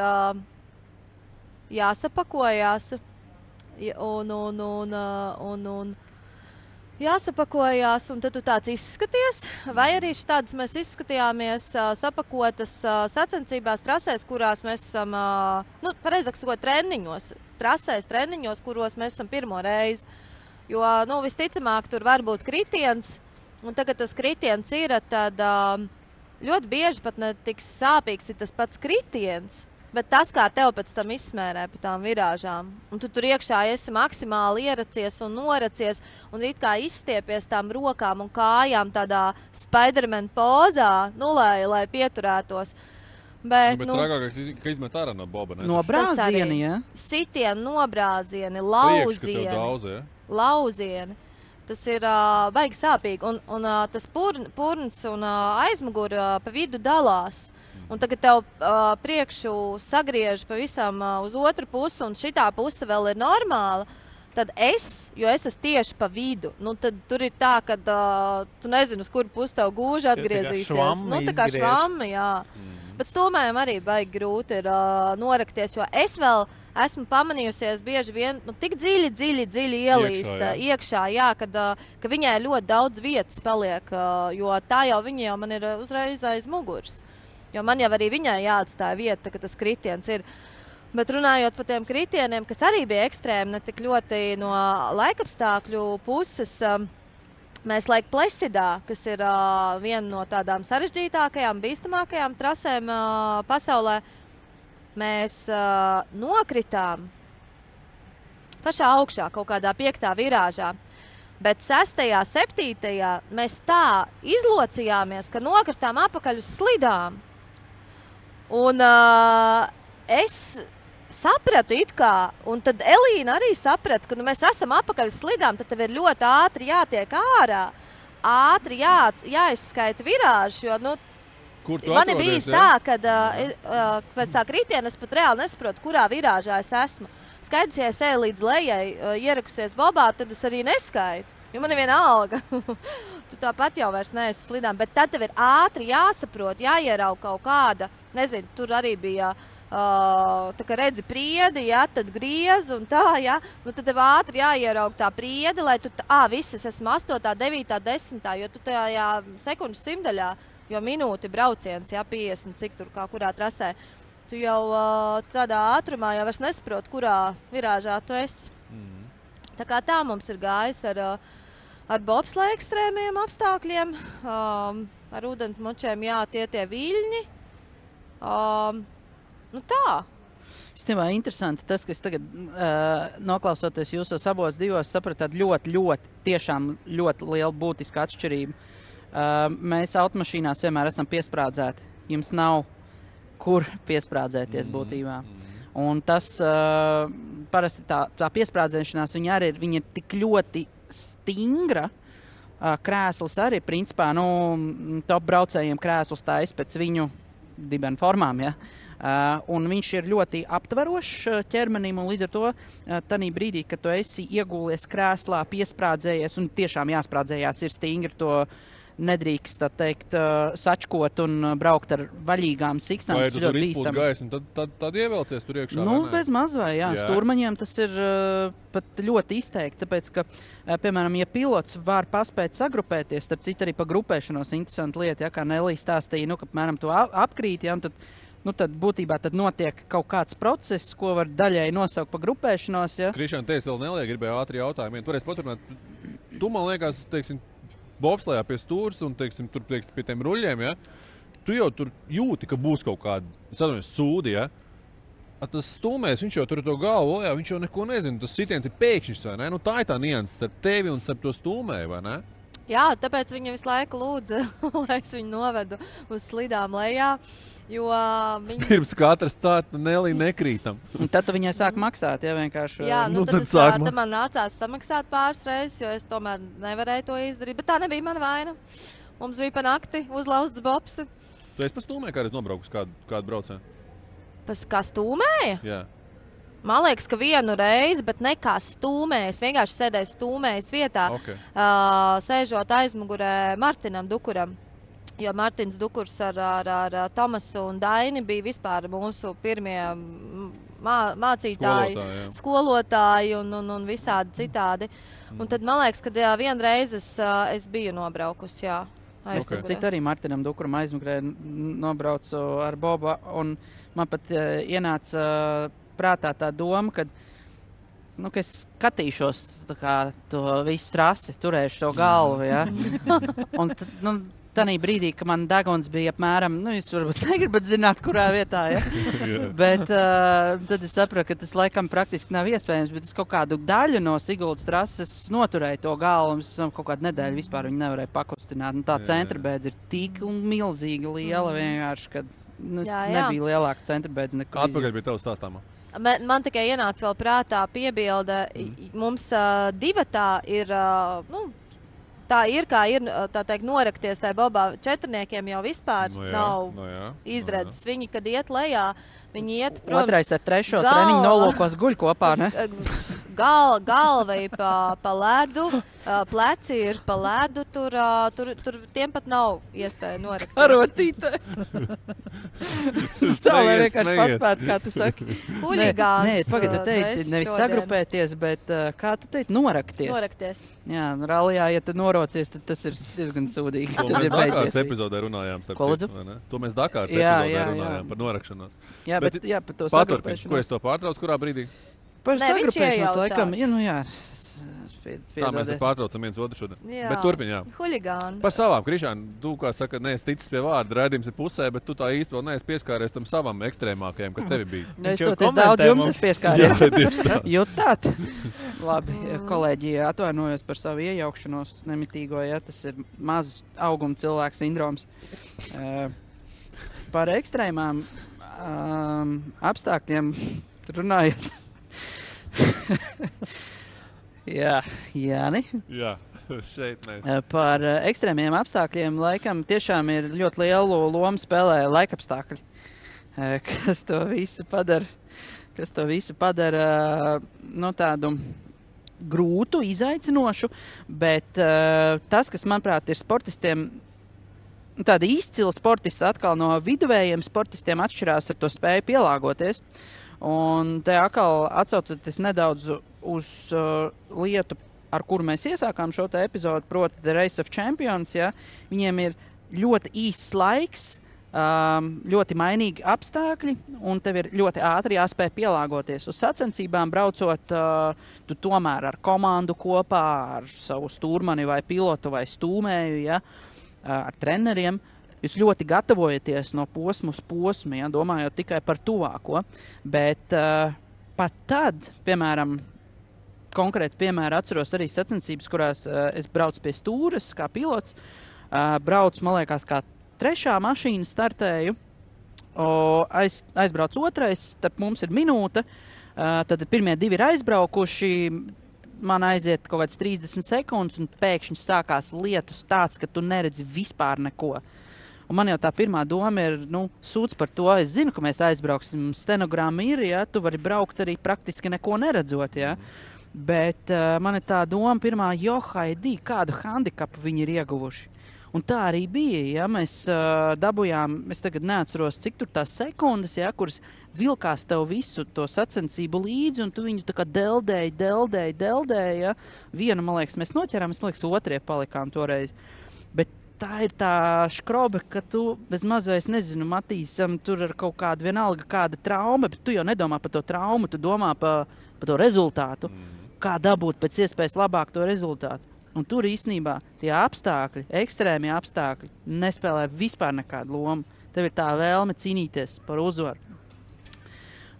jāsapakojās un jāsapakojās, un tad tu tāds izskaties, vai arī šādas mēs izskatījāmies sapakotas sacensībās trasēs, kurās mēs esam, pareizāk sakot, treniņos, kuros mēs esam pirmo reizi. Jo, visticamāk, tur var būt kritiens, un tagad tas kritiens ir, tad ļoti bieži pat ne tik sāpīgs ir tas pats kritiens. Bet tas, kā tev pēc tam izsmērē pa tām virāžām, un tu tur iekšā esi maksimāli ieracies un noracies, un it kā izstiepies tām rokām un kājām tādā Spiderman pozā, lai pieturētos. Bet trākāk, ka izmet ārā no boba, ne? No brāzieni, ja? Sitieni, nobrāzieni, lauzieni. Priekš, ka tev daudz, ja? Lauzieni. Tas ir baigi sāpīgi, un tas purns un aizmuguri pa vidu dalās. Un tagad tev priekšu sagriež pavisam uz otru pusi, un šitā puse vēl ir normāla, tad jo es esmu tieši pa vidu, tad tur ir tā, ka tu nezini, uz kuru pusi tev gūži atgriezīsies. Tā kā švammi, jā. Bet stūmējiem arī baigi grūti ir norakties, jo es vēl esmu pamanījusies bieži vien, tik dziļi ielīst iekšā, jā, ka viņai ļoti daudz vietas paliek, jo tā viņa jau man ir uzreiz aiz muguras. Jo man jau arī viņai jāatstāja vieta, ka tas kritiens ir. Bet runājot par tiem kritieniem, kas arī bija ekstrēmi, ne tik ļoti no laikapstākļu puses, mēs Lake Placidā, kas ir viena no tādām sarežģītākajām, bīstamākajām trasēm pasaulē, mēs nokritām pašā augšā, kaut kādā 5. virāžā. Bet 6., 7. mēs tā izlocījāmies, ka nokritām apakaļ uz slidām. Un es sapratu it kā, un tad Elīna arī saprata, ka mēs esam apakaļ slidām, tad tev ir ļoti ātri jātiek ārā, ātri jāizskaita virāžu, jo, man ir bijis tā, kad pēc tā kritiena es pat reāli nesaprotu, kurā virāžā es esmu. Skaidrs, ja es eju līdz lejai, ierakusies bobā, tad es arī neskaitu, jo man ir viena alga. Tu tāpat jau vairs neesi slidām, bet tad tev ir ātri jāsaprot, jāierauga kaut kāda, nezinu, tur arī bija tā kā redzi priedi, ja, tad griez un tā, ja, tad tev ātri jāierauga tā priedi, lai tu, visas esmu 8., 9., 10., jo tu tajā sekundžu simdaļā, jo minūti brauciens, ja, 50, cik tur kā kurā trasē, tu jau tādā ātrumā jau vairs nesaprot, kurā virāžā tu esi. Tā kā tā mums ir gājis ar bobsleja ekstrēmiem apstākļiem, ar ūdensmočiem, jā, tie viļņi. Tā. Īstenībā interesanti tas, ka es tagad noklausoties jūsos abos divos, sapratu tādu tiešām ļoti lielu būtisku atšķirību. Mēs automašīnās vienmēr esam piesprādzēti. Jums nav kur piesprādzēties būtībā. Un tas parasti tā piesprādzēšanās, viņa ir tik ļoti stingra. Krēsls arī, principā, top braucējiem krēsls tā pēc viņu dibena formām, ja. Un viņš ir ļoti aptverošs ķermenim, un līdz ar to tanī brīdī, kad tu esi iegūlies krēslā, piesprādzējies, un tiešām jāsprādzējās ir stingri, to nedrīkst, tā teikt, sačkot un braukt ar vaļīgām siksnām. Vai tu tur izpūt gaisu, un tad ievelcies tur iekšā? Bez mazvai, jā. Stūrmaņiem tas ir pat ļoti izteikti, tāpēc, ka, piemēram, ja pilots var paspēt sagrupēties, starp citu arī pa grupēšanos interesanti lieta, ja, kā Nelija stāstīja, ka, piemēram, tu apkrīt, ja, un tad būtībā tad notiek kaut kāds process, ko var daļai nosaukt pa grupēšanos, ja. Krišāna, teiks vēl Nelija gribēja ātri jautājumu. Tu varēsi paturpināt, tu, man liekas, teiksim, bobslejā pie stūras un, teiksim, tur pie tiem ruļļiem, ja, tu jau tur jūti, ka būs kaut kāda sūdi, ja. Tas stūmēs, viņš jau tur to galvu, jā, viņš jau neko nezina, tas sitiens ir pēkšņs, vai ne? Tā ir tā nianses starp tevi un starp to stūmēju, vai ne? Jā, tāpēc viņa visu laiku lūdza, lai es viņu novedu uz slidām lejā, jo viņa... Pirms katras tā Nelija nekrītam. Un tad tu viņai sāk maksāt, ja vienkārši... Jā, tad man nācās samaksāt pāris reizes, jo es tomēr nevarēju to izdarīt, bet tā nebija mana vaina. Mums bija pa nakti uzlauzts bobsi. Tu esi pa stūmēju kādreiz nobraukus kādu braucienu? Kā stūmēja? Jā. Man liekas, ka vienu reizi, bet ne kā stūmējis, vienkārši sēdēju stūmējis vietā, sēžot aizmugurē Martinam Dukuram. Jo Martins Dukurs ar Tomasu un Daini bija vispār mūsu pirmie mācītāji, skolotāji un visādi citādi. Un tad man liekas, ka vienreiz es biju nobraukusi, jā. Citu arī Martinam Dukuram aizmugurē nobraucu ar Bobu, un man pat ienāca prātā tā doma, ka es skatīšos to visu trasi, turēšu to galvu, ja. Un tanī brīdī, ka man deguns bija apmēram, jūs varbūt negribat zināt, kurā vietā, ja. Bet tad es sapratu, ka tas laikam praktiski nav iespējams, bet es kaut kādu daļu no Siguldas trases noturēju to galvu, un es kaut kādu nedēļu vispār viņu nevarēju pakustināt. Tā centrbēdze ir tik milzīgi liela vienkārši, ka nebija lielāka centrbēdze neko izjūtas. Atpakaļ bija tev stāstāmā. Man tikai ienāca vēl prātā piebilde, mums divatā ir, tā ir, kā ir, tā teikt, norakties tajā bobā. Četrniekiem jau vispār nav izredzes. Viņi, kad iet lejā, viņi iet, protams... Otrais ar trešo treniņu nolūkos guļ kopā, ne? galva ir pa ledu, pleci ir pa ledu, tur tiem pat nav iespēja norakties. Arotītē. Tā, lai vienkārši paspētu, kā tu saki. Huligāns. Nē, pagad, tu teici, nevis sagrupēties, bet kā tu teici, norakties. Norakties. Jā, ralijā, ja tu norocies, tad tas ir diezgan sūdīgi. To mēs Dakāras epizodē runājām, starp citu, vai ne? To mēs Dakāras epizodē runājām par norakšanos. Jā, bet par to sagrupēšanos. Ko es to pārtraucu, kurā brīdī? Par sagrupēšanos, laikam, jā. Tā mēs pārtraucam viens otru šodien. Bet turpin, jā. Huligāni. Par savām, Krišāni, tu, kā saka, neesi ticis pie vārda, raidījums ir pusē, bet tu tā īsti vēl neesi pieskāries tam savam ekstrēmākajam, kas tevi bija. Es toties daudz jums es pieskāries. Jutāt? Labi, kolēģi, atvainojos par savu iejaukšanos nemitīgo, ja tas ir maz auguma cilvēks sindroms. Par ekstrēmām apstākļiem runājot. Jā, Jāni. Jā, šeit mēs. Par ekstrēmiem apstākļiem laikam tiešām ir ļoti lielu lomu spēlē laikapstākļi, kas to visu padara tādu grūtu, izaicinošu, bet tas, kas, manuprāt, ir sportistiem, tādi izcili sportisti atkal no viduvējiem sportistiem atšķirās ar to spēju pielāgoties. Un te atkal atsaucoties nedaudz uz lietu, ar kuru mēs iesākām šo te epizodu, proti The Race of Champions, ja, viņiem ir ļoti īsts laiks, ļoti mainīgi apstākļi, un tev ir ļoti ātri jāspēj pielāgoties. Uz sacensībām braucot, tu tomēr ar komandu kopā, ar savu stūrmani vai pilotu vai stūmēju, ja, ar treneriem, jūs ļoti gatavojaties no posmu uz posmu, ja, domājot tikai par tuvāko, bet pat tad, piemēram, konkrēti piemēru atceros arī sacensības, kurās es braucu pie stūres kā pilots, braucu, man liekas, kā 3. mašīna startēju, aizbrauc 2, starp mums ir minūte, tad pirmie 2 ir aizbraukuši, man aiziet kaut kāds 30 sekundes un pēkšņi sākās lietus tāds, ka tu neredzi vispār neko. Un man jau tā pirmā doma ir, sūdz par to, es zinu, ka mēs aizbrauksim, stenogramma ir, ja, tu vari braukt arī praktiski neko neredzot, ja. Bet man ir tā doma pirmā, Haidī, kādu handikapu viņi ir ieguvuši. Un tā arī bija, ja, mēs dabujām, es tagad neatceros, cik tur tās sekundes, ja, kuras vilkās tev visu to sacensību līdzi, un tu viņu tā kā deldēji, ja. Vienu, man liekas, mēs noķerām, man liekas, 2 palikām toreiz. Bet tā ir tā škrobe, ka tu bez mazais, nezinu, Matīsam tur ar kaut kādu vienalga kāda trauma, bet tu jau nedomā par to traumu, tu domā par to rezultātu, kā dabūt pēc iespējas labāk to rezultātu. Un tur īstenībā tie apstākļi, ekstrēmie apstākļi, nespēlē vispār nekādu lomu. Tev ir tā vēlme cīnīties par uzvaru.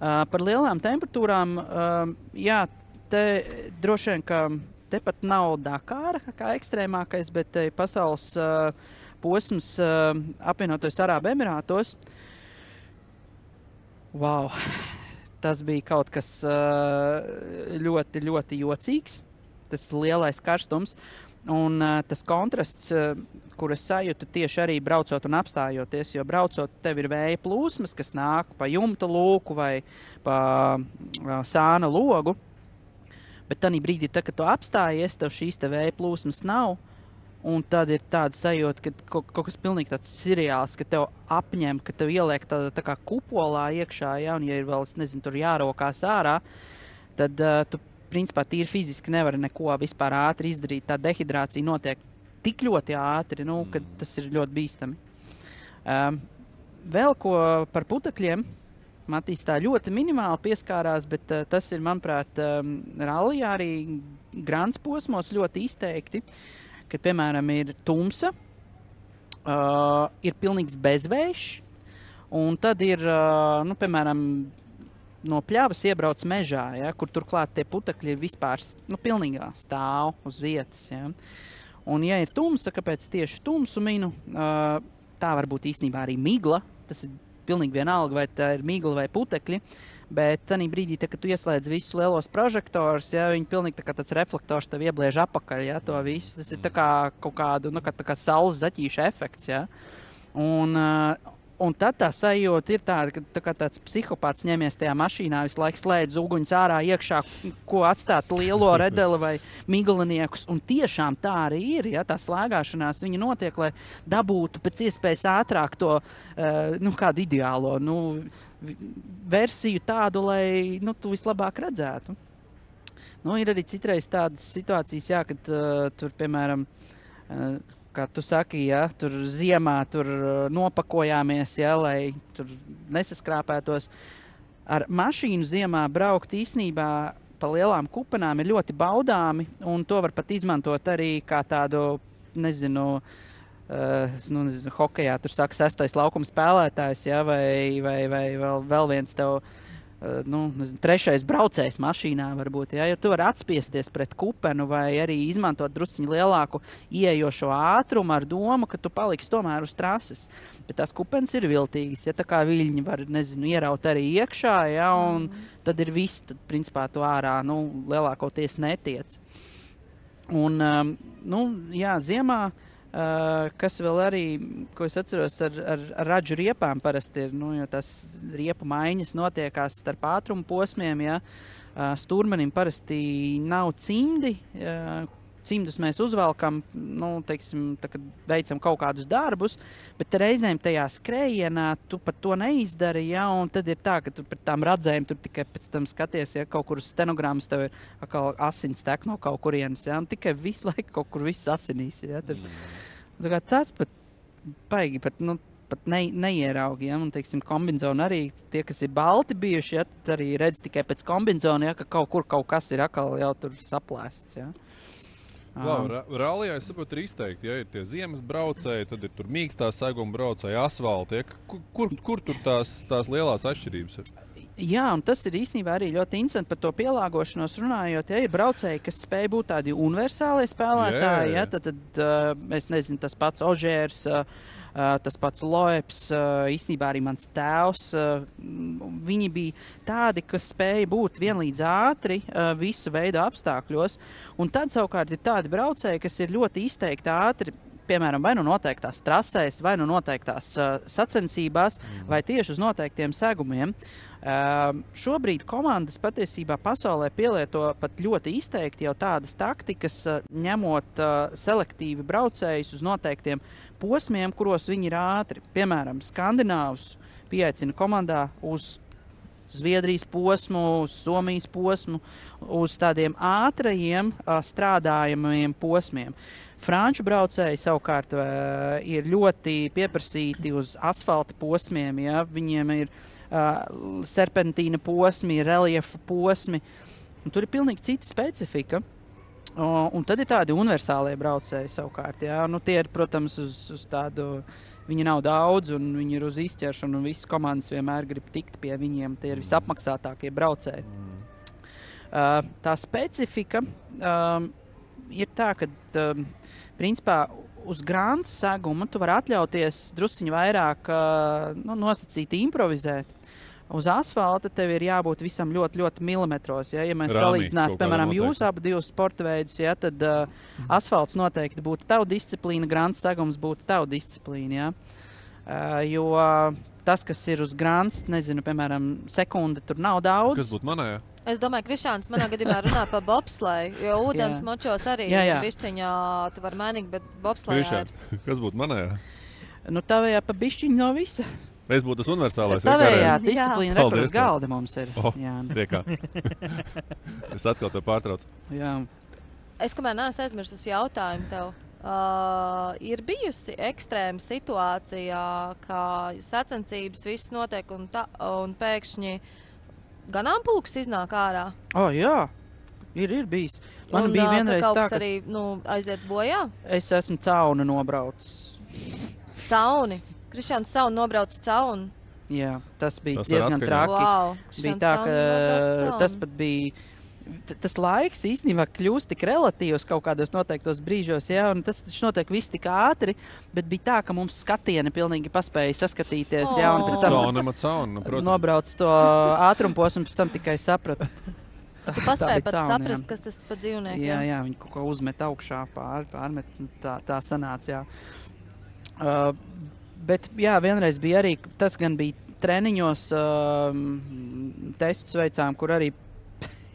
Par lielām temperatūrām, jā, te droši vien, ka te pat nav Dakāra kā ekstrēmākais, bet pasaules posms apvienotos Arābu Emirātos. Wow! Tas bija kaut kas ļoti, ļoti jocīgs. Tas lielais karstums un tas kontrasts, kur es sajūtu tieši arī braucot un apstājoties, jo braucot tev ir vēja plūsmas, kas nāk pa jumta lūku vai pa sāna logu, bet tanī brīdī, kad tu apstājies, tev šīs te vēja plūsmas nav, un tad ir tāda sajūta, ka kaut kas pilnīgi tāds seriāls, ka tev apņem, ka tev ieliek tā kā kupolā iekšā, ja, un ja ir vēl, es nezinu, tur jārokās ārā, tad tu principā tīri fiziski nevar neko vispār ātri izdarīt. Tā dehidrācija notiek tik ļoti ātri, ka tas ir ļoti bīstami. Vēl ko par putekļiem. Matīs tā ļoti minimāli pieskārās, bet tas ir, manuprāt, rallijā arī grants posmos ļoti izteikti, kad, piemēram, ir tumsa, ir pilnīgs bezvējš, un tad ir, piemēram, no pļavas iebrauc mežā, ja, kur turklāt tie putekļi ir vispār pilnīgā stāv uz vietas. Ja. Un, ja ir tumsa, kāpēc tieši tumsu minu, tā var būt īstenībā arī migla. Tas ir pilnīgi vienalga, vai tā ir migla vai putekļi. Bet tanī brīdī, kad tu ieslēdz visus lielos prožektorus, ja, viņi pilnīgi tā kā tāds reflektors tev iebliež apakaļ, ja, to visu. Tas ir tā kā kaut kādu, kā saules zaķīša efekts. Ja. Un Un tad tā sajūta ir tāda, ka tā kā tāds psihopāts ņemies tajā mašīnā, visu laiku slēdz uguņus ārā iekšā, ko atstāt lielo redeli vai miglaniekus. Un tiešām tā arī ir, ja tā slēgāšanās viņa notiek, lai dabūtu pēc iespējas ātrāk to, kādu ideālo, versiju tādu, lai, tu vislabāk redzētu. Ir arī citreiz tādas situācijas, jā, kad tur, piemēram, kā tu saki, ja, tur ziemā tur nopakojāmies, ja, lai tur nesaskrāpētos. Ar mašīnu ziemā braukt īsnībā pa lielām kupenām ir ļoti baudāmi, un to var pat izmantot arī kā tādu, nezinu, hokejā, tur saka 6. laukuma spēlētājs, ja, vai vēl viens tev, 3. braucējs mašīnā varbūt, ja tu vari atspiesties pret kupenu vai arī izmantot drusciņu lielāku ieejošo ātrumu ar domu, ka tu paliksi tomēr uz trases. Bet tās kupenes ir viltīgas, ja tā kā viļņi var, ieraut arī iekšā, ja, un tad ir viss, tad principā tu ārā, lielākoties netiec. Un, jā, ziemā, kas vēl arī, ko es atceros ar radžu riepām parasti ir, jo tās riepu maiņas notiekās starp ātrumu posmiem, ja, stūrmenim parasti nav cimdi, cimdus mēs uzvelkam, teiksim, tā, kad veicam kaut kādus darbus, bet reizēm tajā skrējienā tu pat to neizdari, ja, un tad ir tā, ka tu pret tām radzēm tur tikai pēc tam skaties, ja kaut kur uz stenogrammas tev ir atkal asins tek no kaut kurienes, ja, un tikai visu laiku kaut kur viss asinīs, ja, tur. Tā kā tāds pat paigi, pat neieraugi, ja, un, teiksim, kombinzoni arī, tie, kas ir balti bijuši, ja, arī redz tikai pēc kombinzona, ja, ka kaut kur kaut kas ir atkal jau tur saplēsts, ja. Rallijā, es saprotu, ir izteikti, ja ir tie ziemas braucēji, tad ir tur mīkstā seguma braucēji, asfalti, ja, kur tur tās lielās atšķirības ir? Jā, un tas ir īstenībā arī ļoti interesanti par to pielāgošanos runājot, ja ir braucēji, kas spēj būt tādi universālie spēlētāji, ja, tad es nezinu, tas pats Ožērs, tas pats Loeps, īstenībā arī mans tēvs, viņi bija tādi, kas spēja būt vienlīdz ātri visu veidu apstākļos, un tad savukārt ir tādi braucēji, kas ir ļoti izteikti ātri, piemēram, vai noteiktās trasēs, vai noteiktās sacensībās, vai tieši uz noteiktiem segumiem. Šobrīd komandas patiesībā pasaulē pielieto pat ļoti izteikti jau tādas taktikas, ņemot selektīvi braucējus uz noteiktiem posmiem, kuros viņi ir ātri. Piemēram, skandināvus pieaicina komandā uz Zviedrijas posmu, uz Somijas posmu, uz tādiem ātrajiem strādājumiem posmiem. Franču braucēji savukārt ir ļoti pieprasīti uz asfalta posmiem, ja? Viņiem ir serpentīna posmi, reliefa posmi, un tur ir pilnīgi cita specifika. Un tad ir tādi universālie braucēji savukārt, ja? Tie ir, protams, uz tādu, viņi nav daudz, un viņi ir uz izķeršanu, un visas komandas vienmēr grib tikt pie viņiem, tie ir visapmaksātākie braucēji. Tā specifika ir tā, ka principā uz grāntu seguma tu vari atļauties drusciņu vairāk nosacīti improvizēt. Uz asfalta tev ir jābūt visam ļoti, ļoti milimetros. Ja mēs salīdzinātu, piemēram, jūs abu divus sporta veidus, ja, tad asfalts noteikti būtu tava disciplīna, grāntu segums būtu tava disciplīna. Ja. Jo tas, kas ir uz grānts, nezinu, piemēram, sekunde tur nav daudz. Kas būtu manējā? Es domāju, Krišāns manā gadījumā runā par bobsleju, jo ūdens močos arī bišķiņā tu var mainīt, bet bobslejā Krišāns, kas būtu manējā? Tavējā pa bišķiņu no visa. Es būtu tas universālais. Tavējā disciplīna rekurs galda mums ir. Tiekā. Es atkal tev pārtraucu. Jā. Es kamēr neesmu aizmirsus jautājumu tev. Ir bijusi ekstrēma situācijā, kā sacensības viss notiek un pēkšņi ganāmpulks iznāk ārā? Jā, ir bijis. Man bija vienreiz kaut tā, kas arī aiziet bojā? Es esmu cauni nobraucis. Cauni? Krišāns cauni nobrauc cauni? Jā, tas bija diezgan traki. Wow, bija tā, ka tas pat bija... Tas laiks īstenībā kļūst tik relatīvs kaut kādos noteiktos brīžos, ja, un tas taču notiek viss tik ātri, bet bija tā, ka mums skatieni pilnīgi paspēja saskatīties, ja, un pēc tam nobrauc to ātrumposmu, un pēc tam tikai sapratu. Tu paspēji pat saprast, kas tas pa dzīvniekiem? Jā, viņi kaut ko uzmet augšā, pārmet, tā sanāca, jā. Bet, jā, vienreiz bija arī, tas gan bija treniņos, testus veicām, kur arī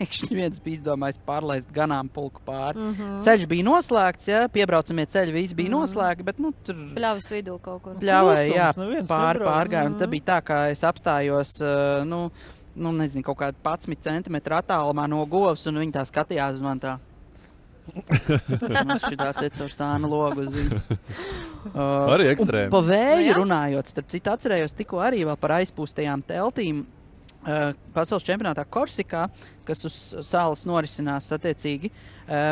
pēkšņi viens bija izdomājis pārlaist ganāmpulku pāri. Ceļš bija noslēgts, ja, piebraucamie ceļi visi bija noslēgti, bet, tur... Pļavas vidū kaut kur. Pļavai, jā, pārgājumu. Tā bija tā, ka es apstājos, nezinu, kaut kādu 11 centimetru attālumā no govs, un viņi tā skatījās uz man tā. Mums šitā te caur sānu logu uz viņu. Arī ekstrēmi. Pa vēju runājot, starp citu atcerējos tikko arī vēl par aizpūstajām teltīm. Pasaules čempionātā Korsikā, kas uz salas norisinās attiecīgi.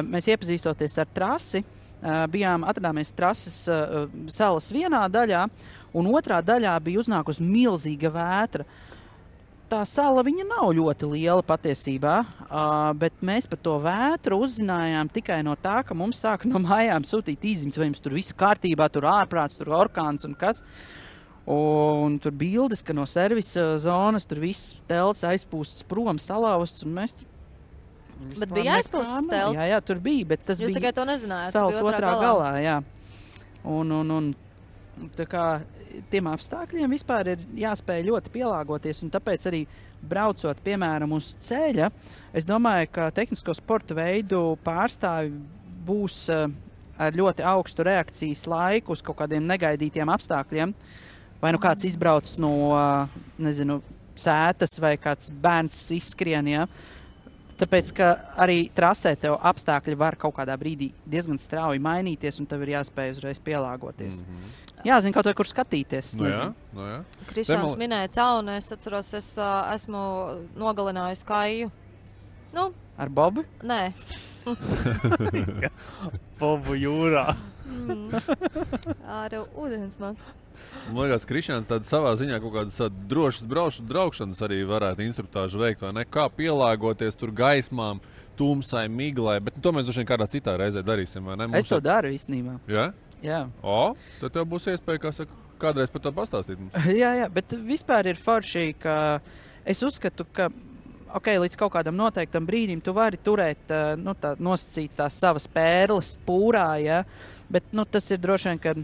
Mēs iepazīstoties ar trasi, atradāmies trases salas vienā daļā, un otrā daļā bija uznākusi milzīga vētra. Tā sala viņa nav ļoti liela patiesībā, bet mēs par to vētru uzzinājām tikai no tā, ka mums sāka no mājām sūtīt īziņas, vai jums tur viss kārtībā, tur ārprāts, tur orkāns un kas. Un tur bildes, ka no servisa zonas tur viss telts aizpūsts prom, salauzts, un mēs tur... Bet bija aizpūsts telts? Jā, tur bija, bet tas Jūs bija... Jūs tikai to nezinājāt? Salas otrā galā, jā. Un tā kā tiem apstākļiem vispār ir jāspēj ļoti pielāgoties, un tāpēc arī braucot, piemēram, uz ceļa, es domāju, ka tehnisko sporta veidu pārstāvi būs ar ļoti augstu reakcijas laiku uz kaut kādiem negaidītiem apstākļiem. Vai nu kāds izbrauc no, nezinu, sētas vai kāds bērns izskrien, ja? Tāpēc, ka arī trasē tev apstākļi var kaut kādā brīdī diezgan strauji mainīties, un tev ir jāspēj uzreiz pielāgoties. Jāzina kaut vai, kur skatīties. No jā. Krišāns minēja caunu, es atceros, es esmu nogalinājusi Kaiju. Ar Bobu? Nē. Bobu jūrā. Ar ūdensmatu. Man liekas, Krišāns tāda savā ziņā kaut kādas drošas braukšanas arī varētu instruktāžu veikt, vai ne? Kā pielāgoties tur gaismām, tumsai, miglai, bet to mēs droši vien kādā citā reizē darīsim, vai ne? Es to daru īstenībā. Jā? Jā. Tad tev būs iespēja, kā saka, kādreiz par to pastāstīt mums. Jā, bet vispār ir forši, ka es uzskatu, ka līdz kaut kādam noteiktam brīdim tu vari turēt, nosacīt tās savas pērles pūrā, ja? Bet tas ir droši vien, ka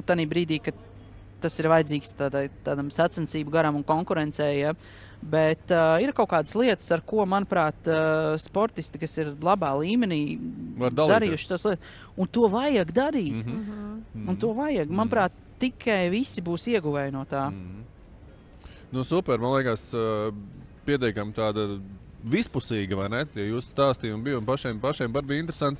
tādā brīdī, kad tas ir vajadzīgs tādam sacensību garam un konkurencei, ja? Bet ir kaut kādas lietas, ar ko, manuprāt, sportisti, kas ir labā līmenī, darījuši tos lietas, un to vajag darīt. Un to vajag. Manuprāt, tikai visi būs ieguvēji no tā. Super, man liekas, pietiekami tāda vispusīga, vai ne? Ja jūs stāstījumi bija un pašiem var bija interesanti.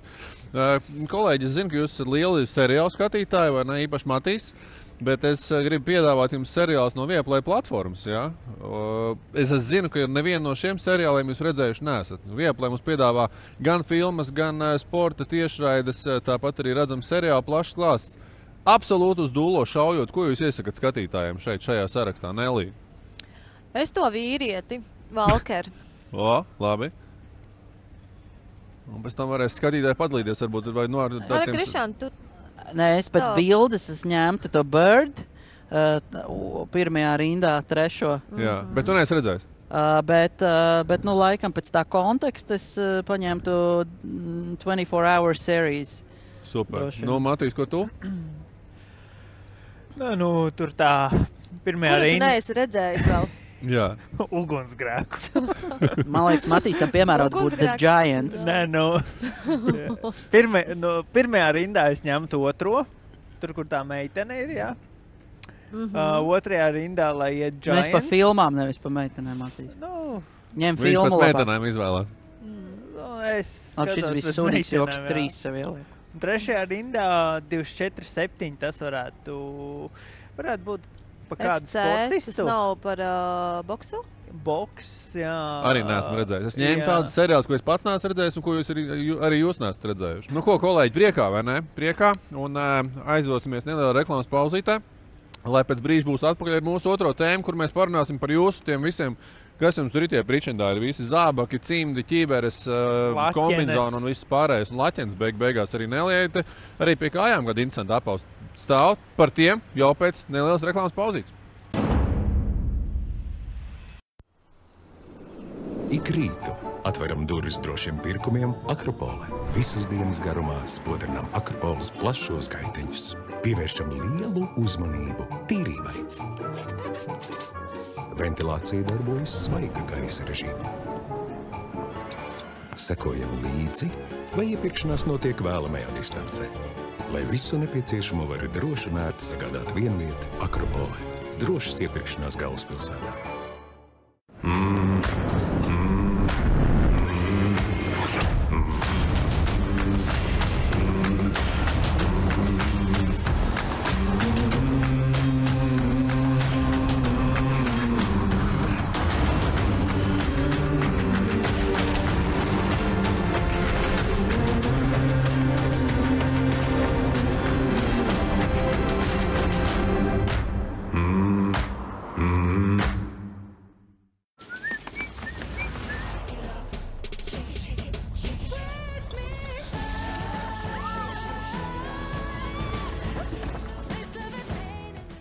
Kolēģi, es zinu, ka jūs esat lieli seriālu skatītāji, vai ne? Īpaši Matīs. Bet es gribu piedāvāt jums seriālus no Viaplay platformas. Ja? Es zinu, ka nevienu no šiem seriāliem jūs redzējuši neesat. Viaplay mums piedāvā gan filmas, gan sporta tiešraides, tāpat arī redzam seriālu plašs klāsts. Absolūti uz dūlo šaujot, ko jūs iesakat skatītājiem šajā sarakstā, Nelī? Es to vīrieti, Valkeru. Labi. Un pēc tam varēs skatītāji padalīties, varbūt vai no ar tādiem... Krišān, tu... Nē, es pēc bildes ņemtu to Bird, pirmajā rindā, trešo. Jā, bet tu neesi redzējis? Bet laikam pēc tā konteksta es paņemtu 24 Hour Series. Super. Matīs, ko tu? Tur tā pirmajā rindā. Kuru tu neesi redzējis vēl? Jā. Ugunsgrēku. Man liekas, Matīsam piemērot būtu The Giants. Nē, pirmajā rindā es ņemtu otro, tur, kur tā meitene ir, jā. Otrajā rindā, lai iet Giants. Mēs pa filmām, nevis pa meitenēm, Matīs. Ņem filmu labāk. Viņš pat meitenēm izvēlēt. Es skatos šis bija sūdīgs joks 3 sev ieliek. Trešajā rindā 24-7 tas varētu būt pa kādu sportistu. Tas nav par boksu? Boks, jā. Arī neesmu redzējis. Es ņēmu tādus seriālus, ko es pats neesmu redzējis un ko jūs arī jūs neesat redzējuši. Ko, kolēģi, priekā, vai ne? Priekā. Un aizdosimies nelielā reklāmas pauzītē, lai pēc brīža būs atpakaļ ar mūsu otro tēmu, kur mēs parunāsim par jūsu tiem visiem, kas jums tur ir tie pričendāri, visi zābaki, cimdi, ķīveres, kombinzoni un viss pārējais. Un laķens beigās arī nelieta, arī pie kājām kāda interesanta apaus. Stāv par tiem jau pēc nelielas reklāmas pauzītes. Ik rītu atveram durvis drošiem pirkumiem Akropole. Visas dienas garumā spodrinām Akropoles plašos gaiteņus. pievēršam lielu uzmanību tīrībai. Ventilācija darbojas svaiga gaisa režīmā. Sekojam līdzi, vai iepirkšanās notiek vēlamajā distancē. Lai visu nepieciešamo var droši un ērti sagādāt vienviet Akropole. Drošas iepirkšanās galvaspilsētā.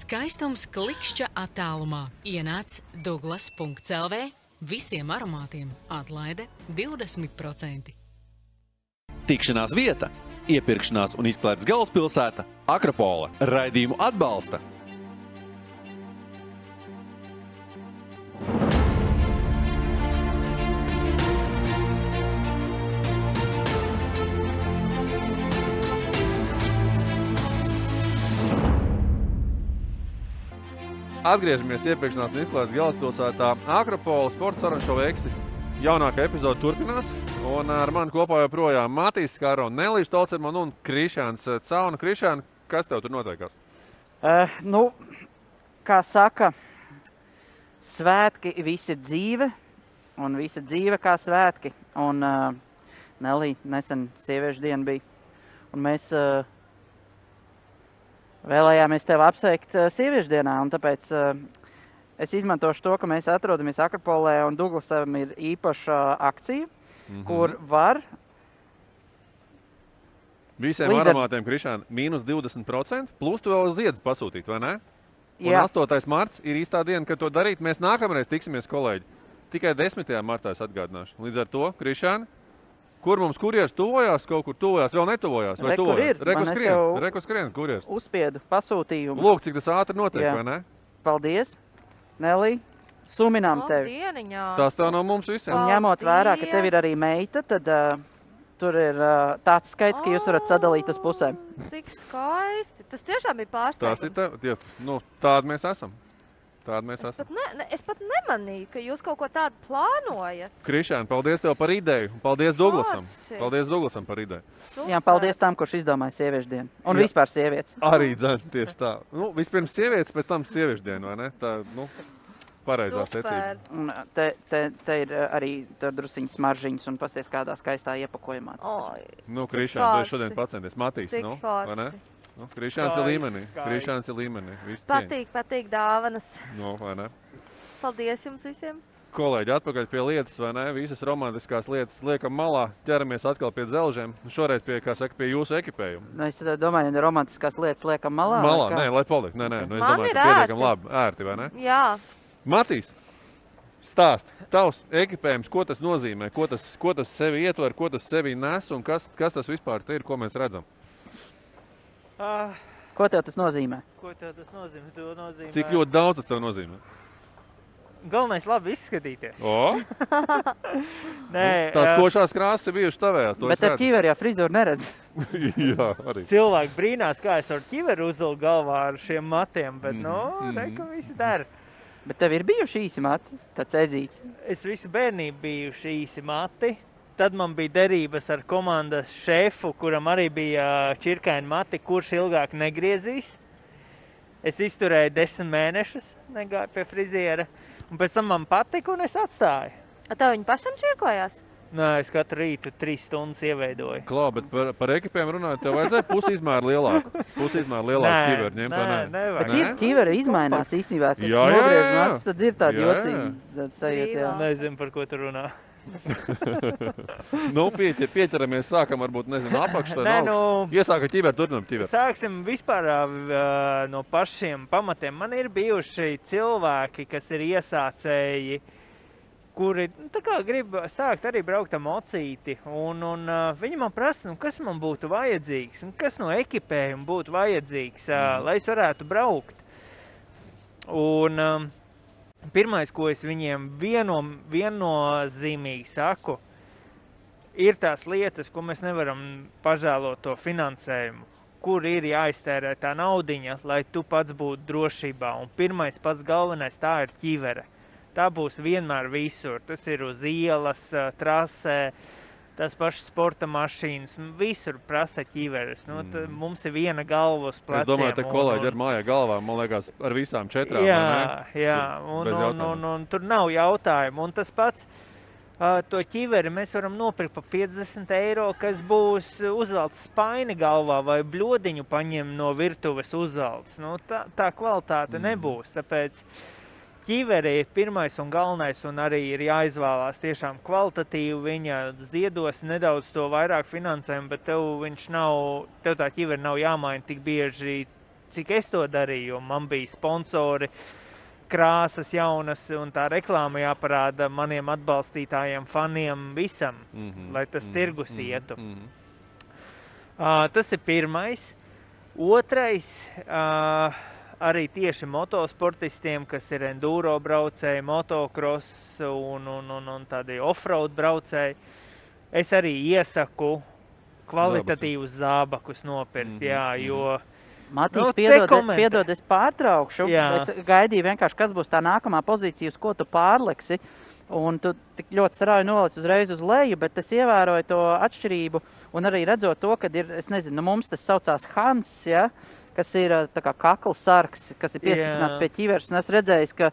Skaistums klikšķa attālumā. Ienāc Douglas.lv. Visiem aromātiem atlaide 20%. Tikšanās vieta, iepirkšanās un izklaides galvaspilsēta Akropole. Raidījumu atbalsta Atgriežamies iepirkšanās un izklaides galvaspilsētā Akropole sporta sarunu šova Eksi. Jaunākā epizode turpinās, un ar mani kopā joprojām Matīs Skaro, Nelīša Tolcermana un Krišāns Cauna. Krišān, kas tev tur notiekās? Kā saka, svētki visi dzīve, un visa dzīve kā svētki. Un Nelī, nesen sieviešu diena bija, un mēs vēlējāmies tevi apsveikt sieviešu dienā, un tāpēc es izmantošu to, ka mēs atrodamies Akropolē, un Douglasam ir īpaša akcija, kur var... Visiem aromātiem, Krišān, mīnus 20%, plus tu vēl ziedus pasūtīt, vai ne? Un 8. marts ir īstā diena, kad to darīt. Mēs nākamreiz tiksimies, kolēģi. Tikai 10. martā es atgādināšu. Līdz ar to, Krišān, kur mums kurjers tuvojās, kaut kur tuvojās, vēl netuvojās? Vai kur ir? Reku skrien, kurjers. Uzspiedu pasūtījumu. Lūk, cik tas ātri notiek, vai ne? Paldies, Nelī. Suminām tevi. Tās tev no mums visiem. Un ņemot vērā, ka tev ir arī meita, tad tur ir tāds skaits, ka jūs varat sadalīt uz pusēm. Cik skaisti. Tas tiešām ir pārsteigums. Tādi mēs esam. Es pat nemanīju, ka jūs kaut ko tādu plānojat. Krišān, paldies tev par ideju. Paldies Douglasam. Paldies Douglasam par ideju. Super. Jā, paldies tam, kurš izdomāja sieviešu dienu. Un vispār sievietes. Arī dzēn, tieši tā. Vispirms sievietes, pēc tam sieviešu dienu, vai ne? Tā, pareizā secība. Te ir arī drusiņas smaržiņas un pasties kādā skaistā iepakojumā. Krišān, tu šodien pacenties. Matīs, vai ne? Krišāns ir līmenī. Patīk dāvanas. Vai ne? Paldies jums visiem. Kolēģi, atpakaļ pie lietas, vai ne? Visas romantiskās lietas liekam malā, ķeramies atkal pie dzelžiem. Šoreiz pie jūsu ekipējuma. Es domāju, ka romantiskās lietas liekam malā. Nē, lai paliek. Nē, es domāju, ka pietiekam labi. Ērti, vai ne? Jā. Matīs, stāst, tavs ekipējums, ko tas nozīmē, ko tas sevi ietver, ko tas sevi nes un kas tas vispār ir, ko mēs redzam? Ko tev tas nozīmē? Cik ļoti daudz tas tev nozīmē? Galvenais labi izskatīties. Tās košās krāsas ir bijušas tavējās. Bet ar ķiveri jau frizūru neredz. Jā, arī. Cilvēki brīnās, kā es ar ķiveri uzvilku galvā ar šiem matiem, bet reka visi dara. Bet tev ir bijuši īsi mati, tāds ezīts? Es visu bērnību bijuši īsi mati. Tad man bija derības ar komandas šefu, kuram arī bija čirkaini mati, kurš ilgāk negriezīs. Es izturēju 10 mēnešus, negāju pie friziera, un pēc tam man patika, un es atstāju. Tev viņi pašam čirkojās? Nē, es katru rītu 3 stundas ieveidoju. Klā, bet par ekipēm runājot, tev vajadzēja pusizmēru lielāku. Ķiveru ņemt, vai ne? Bet ķiveri izmainās īstenībā, kad nogriež matus, tad ir tādi jocīgi sajūta. Nezinu, par ko tu runā. Pieķeramies, sākam varbūt, apakšā, iesāka ķiveru, turpinam ķiveru. Sāksim vispār no pašiem pamatiem. Man ir bijuši cilvēki, kas ir iesācēji, kuri tā kā grib sākt arī braukt ar mocīti, un viņi man prasa, kas man būtu vajadzīgs, kas no ekipējuma būtu vajadzīgs, lai es varētu braukt. Un pirmais, ko es viņiem viennozīmīgi saku, ir tās lietas, ko mēs nevaram pažēlot to finansējumu, kur ir jāiztērē tā naudiņa, lai tu pats būtu drošībā. Un pirmais pats galvenais tā ir ķivere. Tā būs vienmēr visur. Tas ir uz ielas, trasē, tās pašas sporta mašīnas. Visur prasa ķiveres. Mums ir viena galva uz pleciem. Es domāju, te kolēģi ar mājā galvā, man liekas, ar visām 4. Jā, un tur nav jautājumu. Un tas pats, to ķiveri mēs varam nopirkt pa 50 eiro, kas būs uzvelts spaini galvā vai bļodiņu paņem no virtuves uzvelts. Tā kvalitāte nebūs, tāpēc ķiveri ir pirmais un galvenais, un arī ir jāizvēlās tiešām kvalitatīvi. Viņa ziedos nedaudz to vairāk finansējumu, bet tev tā ķiveri nav jāmaina tik bieži, cik es to darīju, jo man bija sponsori, krāsas jaunas, un tā reklāma jāparāda maniem atbalstītājiem, faniem, visam, lai tas tirgus ietu. Tas ir pirmais. Otrais, arī tieši motosportistiem, kas ir enduro braucēji, motocross un tādi offroad braucēji, es arī iesaku kvalitatīvus zābakus nopirkt, jo... Matīs, piedod, es pārtraukšu. Es gaidīju vienkārši, kas būs tā nākamā pozīcija, uz ko tu pārliksi, un tu tik ļoti strauji nolic uzreiz uz leju, bet es ievēroju to atšķirību, un arī redzot to, kad ir, es nezinu, mums tas saucās Hans, ja? Kas ir tā kā kaklasargs, kas ir piestiprināts pie ķiveres. Un es redzēju, ka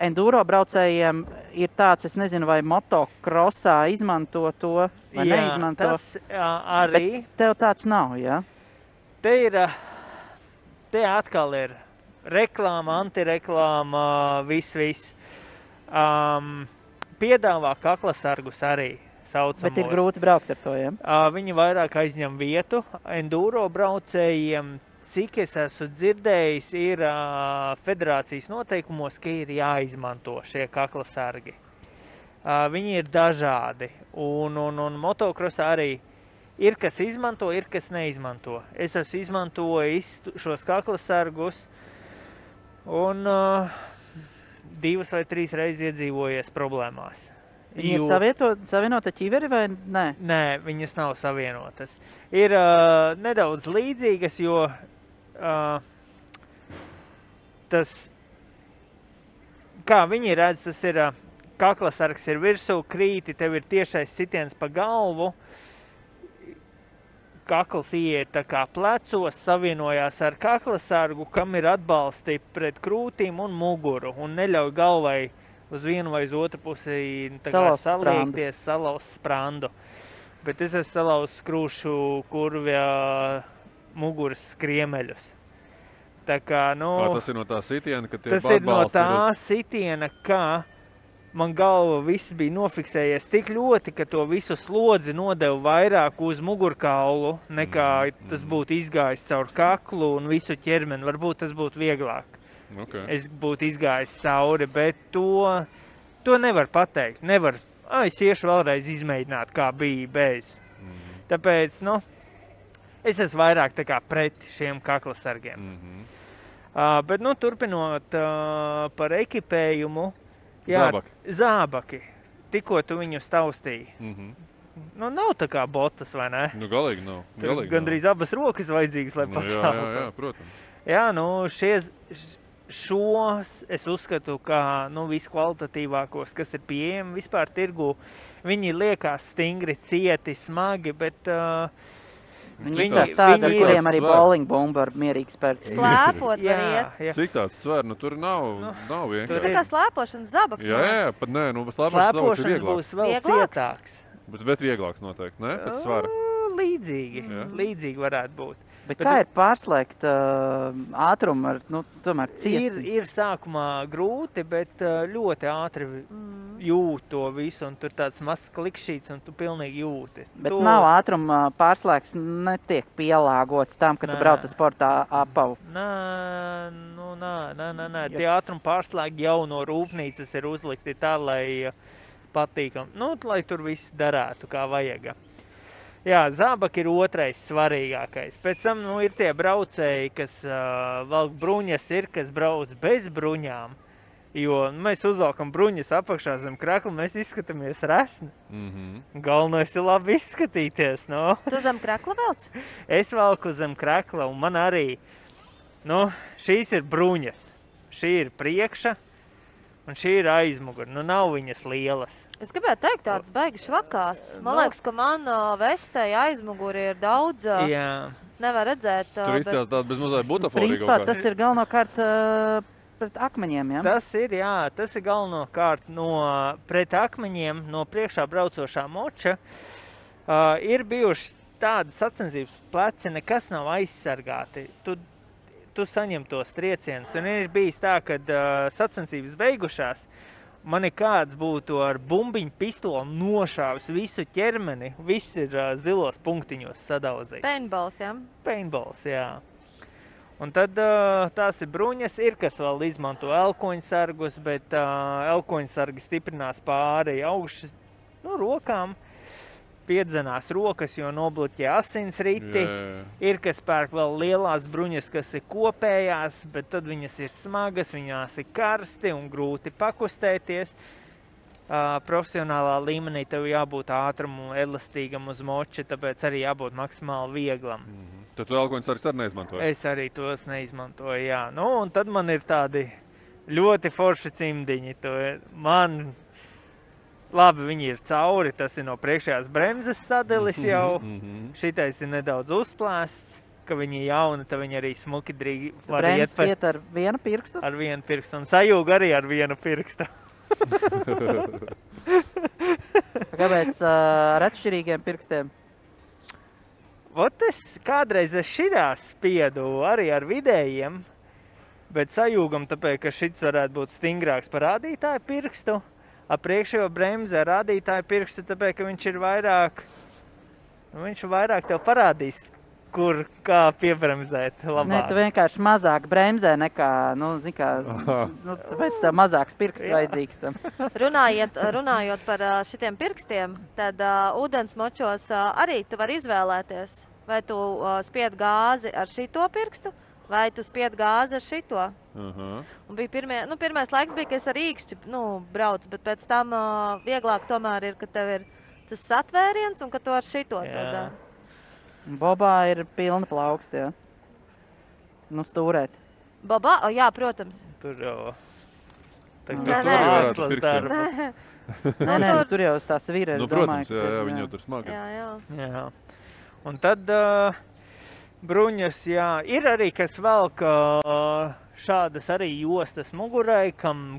enduro braucējiem ir tāds, es nezinu, vai motocrossā izmanto to, vai neizmanto. Tas arī. Bet tev tāds nav, jā? Te atkal ir reklāma, antireklāma, viss. Piedāvā kaklasargus arī. Saucamos. Bet ir grūti braukt ar to, ja? Viņi vairāk aizņem vietu enduro braucējiem. Cik es esmu dzirdējis, ir federācijas noteikumos, ka ir jāizmanto šie kaklasargi. Viņi ir dažādi, un motocrossā arī ir, kas izmanto, ir, kas neizmanto. Es esmu izmantojis šos kaklasargus, un 2 vai 3 reizes iedzīvojies problēmās. Viņi ir savienota ķiveri vai nē? Nē, viņas nav savienotas. Ir nedaudz līdzīgas, jo tas, kā viņi redz, tas ir kaklasargs ir virsū, krīti, tev ir tiešais sitiens pa galvu, kakls ieiet tā kā plecos, savienojās ar kaklasargu, kam ir atbalsti pret krūtīm un muguru, un neļauj galvai uz vienu vai uz otru pusi saliekties, salauzt sprandu. Bet es esmu salauzis krūšu kurvja muguras skriemeļus. Tā kā, tas ir no tā sitiena, ka tie tas ir no tā sitiena, ka man galva viss bija nofiksējies tik ļoti, ka to visu slodzi nodeva vairāk uz mugurkaulu, nekā tas būtu izgājis caur kaklu un visu ķermeni. Varbūt tas būtu vieglāk. Okay. Es būtu izgājis cauri, bet to nevar pateikt. Nevar. Es iešu vēlreiz izmēģināt, kā bija bez. Tāpēc, es esmu vairāk tā kā pret šiem kaklasargiem. Bet, turpinot par ekipējumu, zābaki. Tikko tu viņus taustīji. Nav tā kā botas, vai ne? Galīgi nav. Gandrīz abas rokas vajadzīgas, lai paceltu. Jā, protams. Jā, šos es uzskatu, kā viskvalitatīvākos, kas ir pieejami vispār tirgū. Viņi liekas stingri, cieti, smagi, bet viņi tādi, ar kuriem arī bowling bumba ar mierīgi spērt. Slēpot var iet. Cik tāds sver? Tur nav vienkārši. Tas tā kā slēpošanas zabaks. Jā, pat nē, slēpošanas zabaks ir vieglāk. Būs vēl cietāks. Bet vieglāks noteikti, ne? Pēc svara. Līdzīgi varētu būt. Bet kā ir pārslēgt ātrumu ar, tomēr ciets? Ir sākumā grūti, bet ļoti ātri jūt to visu, un tur tāds mazs klikšķīts, un tu pilnīgi jūti. Bet nav ātruma pārslēgs, netiek pielāgots tam, ka tu brauc ar sportā apavu? Nē, nē. Tie ātruma pārslēgi jau no rūpnīcas ir uzlikti tā, lai patīkam. Lai tur viss darētu, kā vajag. Jā, zābaki ir otrais svarīgākais. Pēc tam, ir tie braucēji, kas valk bruņas ir, kas brauc bez bruņām. Jo mēs uzvalkam bruņas apakšā zem krakla, mēs izskatāmies resni. Galvenais ir labi izskatīties, Tu zem krakla velc? Es valku zem krakla, un man arī, šīs ir bruņas. Šī ir priekša, un šī ir aizmugura. Nav viņas lielas. Es gribētu teikt, tāds baigi švakās. Man liekas, ka man vestei aizmuguri ir daudz. Jā. Nevar redzēt. Tur izstās tāda bezmazai butaforija Principā tas ir galvenokārt pret akmeņiem, ja? Tas ir galvenokārt pret akmeņiem no priekšā braucošā moča. Ir bijuši tādas sacensības pleci, nekas nav aizsargāti. Tu saņem tos triecienus. Un ir bijis tā, kad sacensības beigušās, mani kāds būtu ar bumbiņu pistoli nošāvis visu ķermeni. Viss ir zilos punktiņos sadauzīts. Paintballs, jā? Paintballs, jā. Un tad tās ir bruņas, ir kas vēl izmanto elkoņsargus, bet elkoņsargi stiprinās pāri augšas rokām. Piedzenās rokas, jo nobloķē asinsriti. Ir kas pērk vēl lielās bruņas, kas ir kopējās, bet tad viņas ir smagas, viņās ir karsti un grūti pakustēties. Profesionālā līmenī tev jābūt ātrumu, elastīgam uz moča, tāpēc arī jābūt maksimāli vieglam. Tad tu elkoņsargus arī neizmantoji? Es arī tos neizmantoju, jā. Un tad man ir tādi ļoti forši cimdiņi. Labi, viņi ir cauri, tas ir no priekšējās bremzes sadilis jau. Šitais ir nedaudz uzplēsts, ka viņi ir jauni, tad viņi arī smuki drīgi var iet par... Bremzes ar vienu pirkstu? Ar vienu pirkstu, un sajūga arī ar vienu pirkstu. Kāpēc ar atšķirīgiem pirkstiem? Kādreiz es šitā spiedu arī ar vidējiem, bet sajūgam tāpēc, ka šits varētu būt stingrāks par rādītāju pirkstu. Ar priekšējo bremzi ar rādītāju pirkstu, tāpēc, ka viņš ir vairāk tev parādīs, kur kā piebremzēt labāk. Nē, tu vienkārši mazāk bremzē nekā, tāpēc tev mazāks pirksts vajadzīgs tam. Runājot par šitiem pirkstiem, tad ūdens močos arī tu vari izvēlēties, vai tu spied gāzi ar šito pirkstu, vai tu spied gāzi ar šito. Un bija pirmais laiks bija, ka es ar īkšķi braucu, bet pēc tam vieglāk tomēr ir, ka tev ir tas satvēriens un ka tu ar šito to dari. Bobā ir pilna plaukst, jā. Stūrēt. Bobā? Jā, protams. Tur jau... Nē, tur jau tās vīra, es domāju. Protams, jā, viņi jau tur smagi. Jā. Un tad bruņas, jā, ir arī, kas velk šādas arī jostas mugurai, kam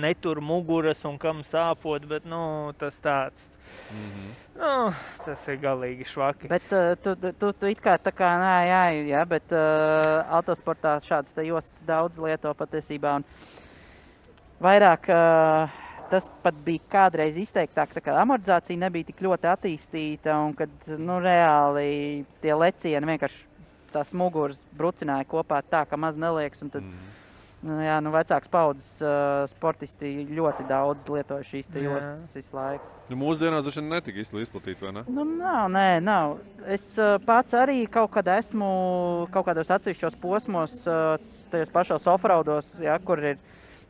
netur muguras un kam sāpot, bet, tas tāds. Tas ir galīgi švaki. Bet tu it kā tā kā, jā, bet autosportā šādas te jostas daudz lieto patiesībā, un vairāk tas pat bija kādreiz izteiktāk, tā kā amortizācija nebija tik ļoti attīstīta, un kad, reāli tie lecieni vienkārši tās muguras brucināja kopā tā, ka maz neliekas, un tad, vecāks paudzes sportisti ļoti daudz lietoja šīs te jostas visu laiku. Mūsdienās droši vien netika izplatīti, vai ne? Nav. Es pats arī kaut kad esmu kaut kādos atsevišķos posmos, tajos pašos offroados, kur ir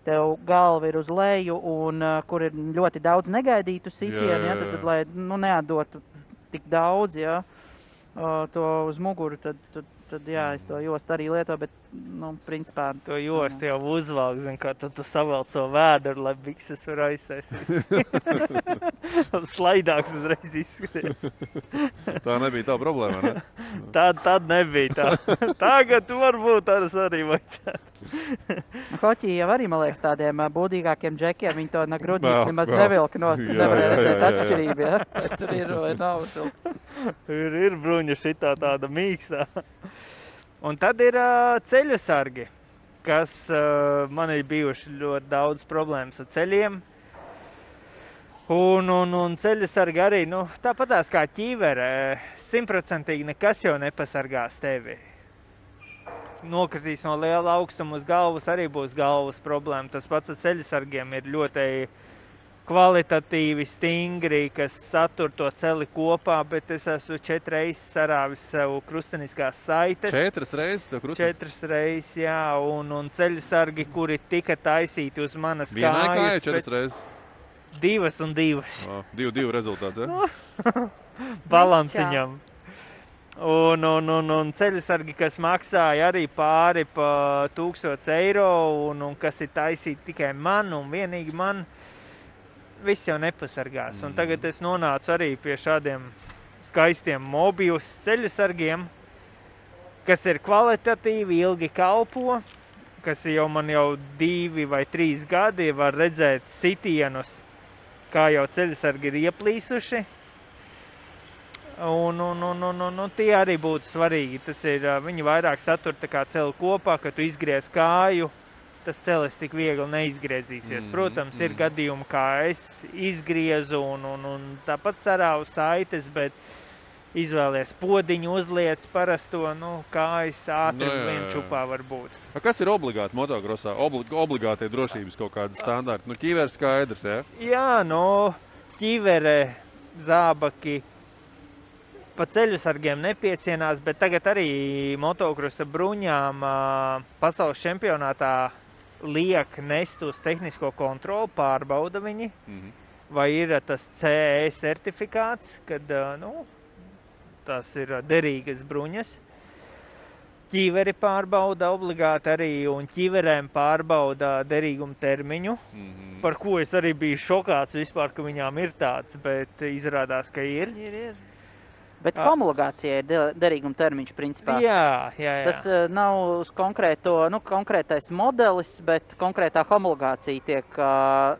tev galva ir uz leju un kur ir ļoti daudz negaidītu sitienu, tad lai neatdotu tik daudz, to uz muguru, tad es to jostu arī lietoju, bet, principā... To jostu jau uzvalk, kā tad tu savelc savu vēdru, lai bikses var aiztaisīt. Slaidāks uzreiz izskaties. Tā nebija tā problēma, ne? Tad nebija tā. Tagad varbūt arī vajadzētu. Hoķī jau arī, man liekas, tādiem būdīgākiem džekiem, viņi to grudņīt nemaz nevilka nost, nevarēja redzēt atšķirību, Tur ir vai nav šilts. Ir bruņa šitā tāda mīkstā. Un tad ir ceļu sargi, kas man ir bijuši ļoti daudz problēmas ar ceļiem. Un ceļu sargi arī, tāpatās kā ķīvere, 100% nekas jau nepasargās tevi. nokritīs no liela augstuma uz galvas, arī būs galvas problēma. Tas pats ar ceļasargiem ir ļoti kvalitatīvi, stingri, kas satur to celi kopā, bet es esmu 4 reizes sarāvis sev krusteniskās saites. 4 reizes tev krusteniskās? 4 reizes, jā, un ceļasargi, kuri tika taisīti uz manas kājas. Vienai kājai 4 reizes? 2 un 2. 2 rezultāts, ja? Balansiņam. Un ceļasargi, kas maksāja arī pāri pa 1000 eiro, un kas ir taisīti tikai man un vienīgi man, viss jau nepasargās. Un tagad es nonācu arī pie šādiem skaistiem Mobius ceļasargiem, kas ir kvalitatīvi, ilgi kalpo, kas man jau 2 vai 3 gadi var redzēt sitienus, kā jau ceļasargi ir ieplīsuši. Un tie arī būtu svarīgi. Tas ir, viņi vairāk satur tā kā celi kopā, kad tu izgriez kāju, tas celis tik viegli neizgriezīsies. Protams, ir gadījumi, kā es izgriezu un tāpat sarāvu saites, bet izvēlies podiņu, uzliec parasto, kājas ātri vien čupā var būt. Kas ir obligāti motokrosā? Obligātie drošības kaut kādi standarti? Ķīveres skaidrs, ja? Jā, ķīvere, zābaki, pa ceļasargiem nepiesienās, bet tagad arī motokrosa bruņām pasaules čempionātā liek nest uz tehnisko kontroli, pārbauda viņi, vai ir tas CE certifikāts, kad tas ir derīgas bruņas. Ķīveri pārbauda obligāti arī, un ķīverēm pārbauda derīgumu termiņu, par ko es arī biju šokāts vispār, ka viņām ir tāds, bet izrādās, ka ir. Ir. Bet homologācija ir derīguma termiņš, principā. Jā. Tas nav uz konkrētais modelis, bet konkrētā homologācija tiek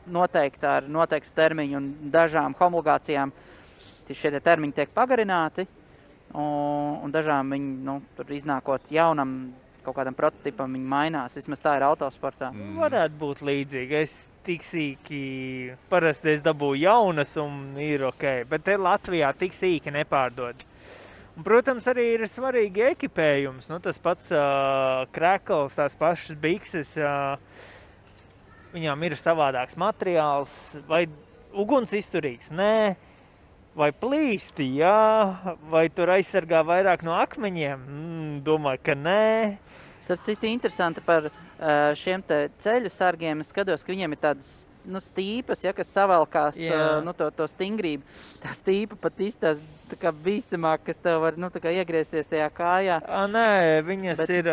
noteikta ar noteiktu termiņu, un dažām homologācijām šie termiņi tiek pagarināti, un dažām viņi, tur iznākot jaunam kaut kādam prototipam, viņi mainās. Vismaz tā ir autosportā. Varētu būt līdzīgi. Es tik sīki, parasti es dabūju jaunas un ir ok, bet te Latvijā tik sīki nepārdod. Un, protams, arī ir svarīgi ekipējums, tas pats krekls, tās pašas bikses, viņām ir savādāks materiāls, vai uguns izturīgs, nē, vai plīsti, jā, vai tur aizsargā vairāk no akmeņiem, domāju, ka nē. Starp citu, interesanti par šiem te ceļu sargiem. Es skatos, ka viņiem ir tādas stīpas, kas savalkās to stingrību. Tā stīpa pat izstās tā kā bīstamāk, kas tev var iegriezties tajā kājā. Nē, viņas ir...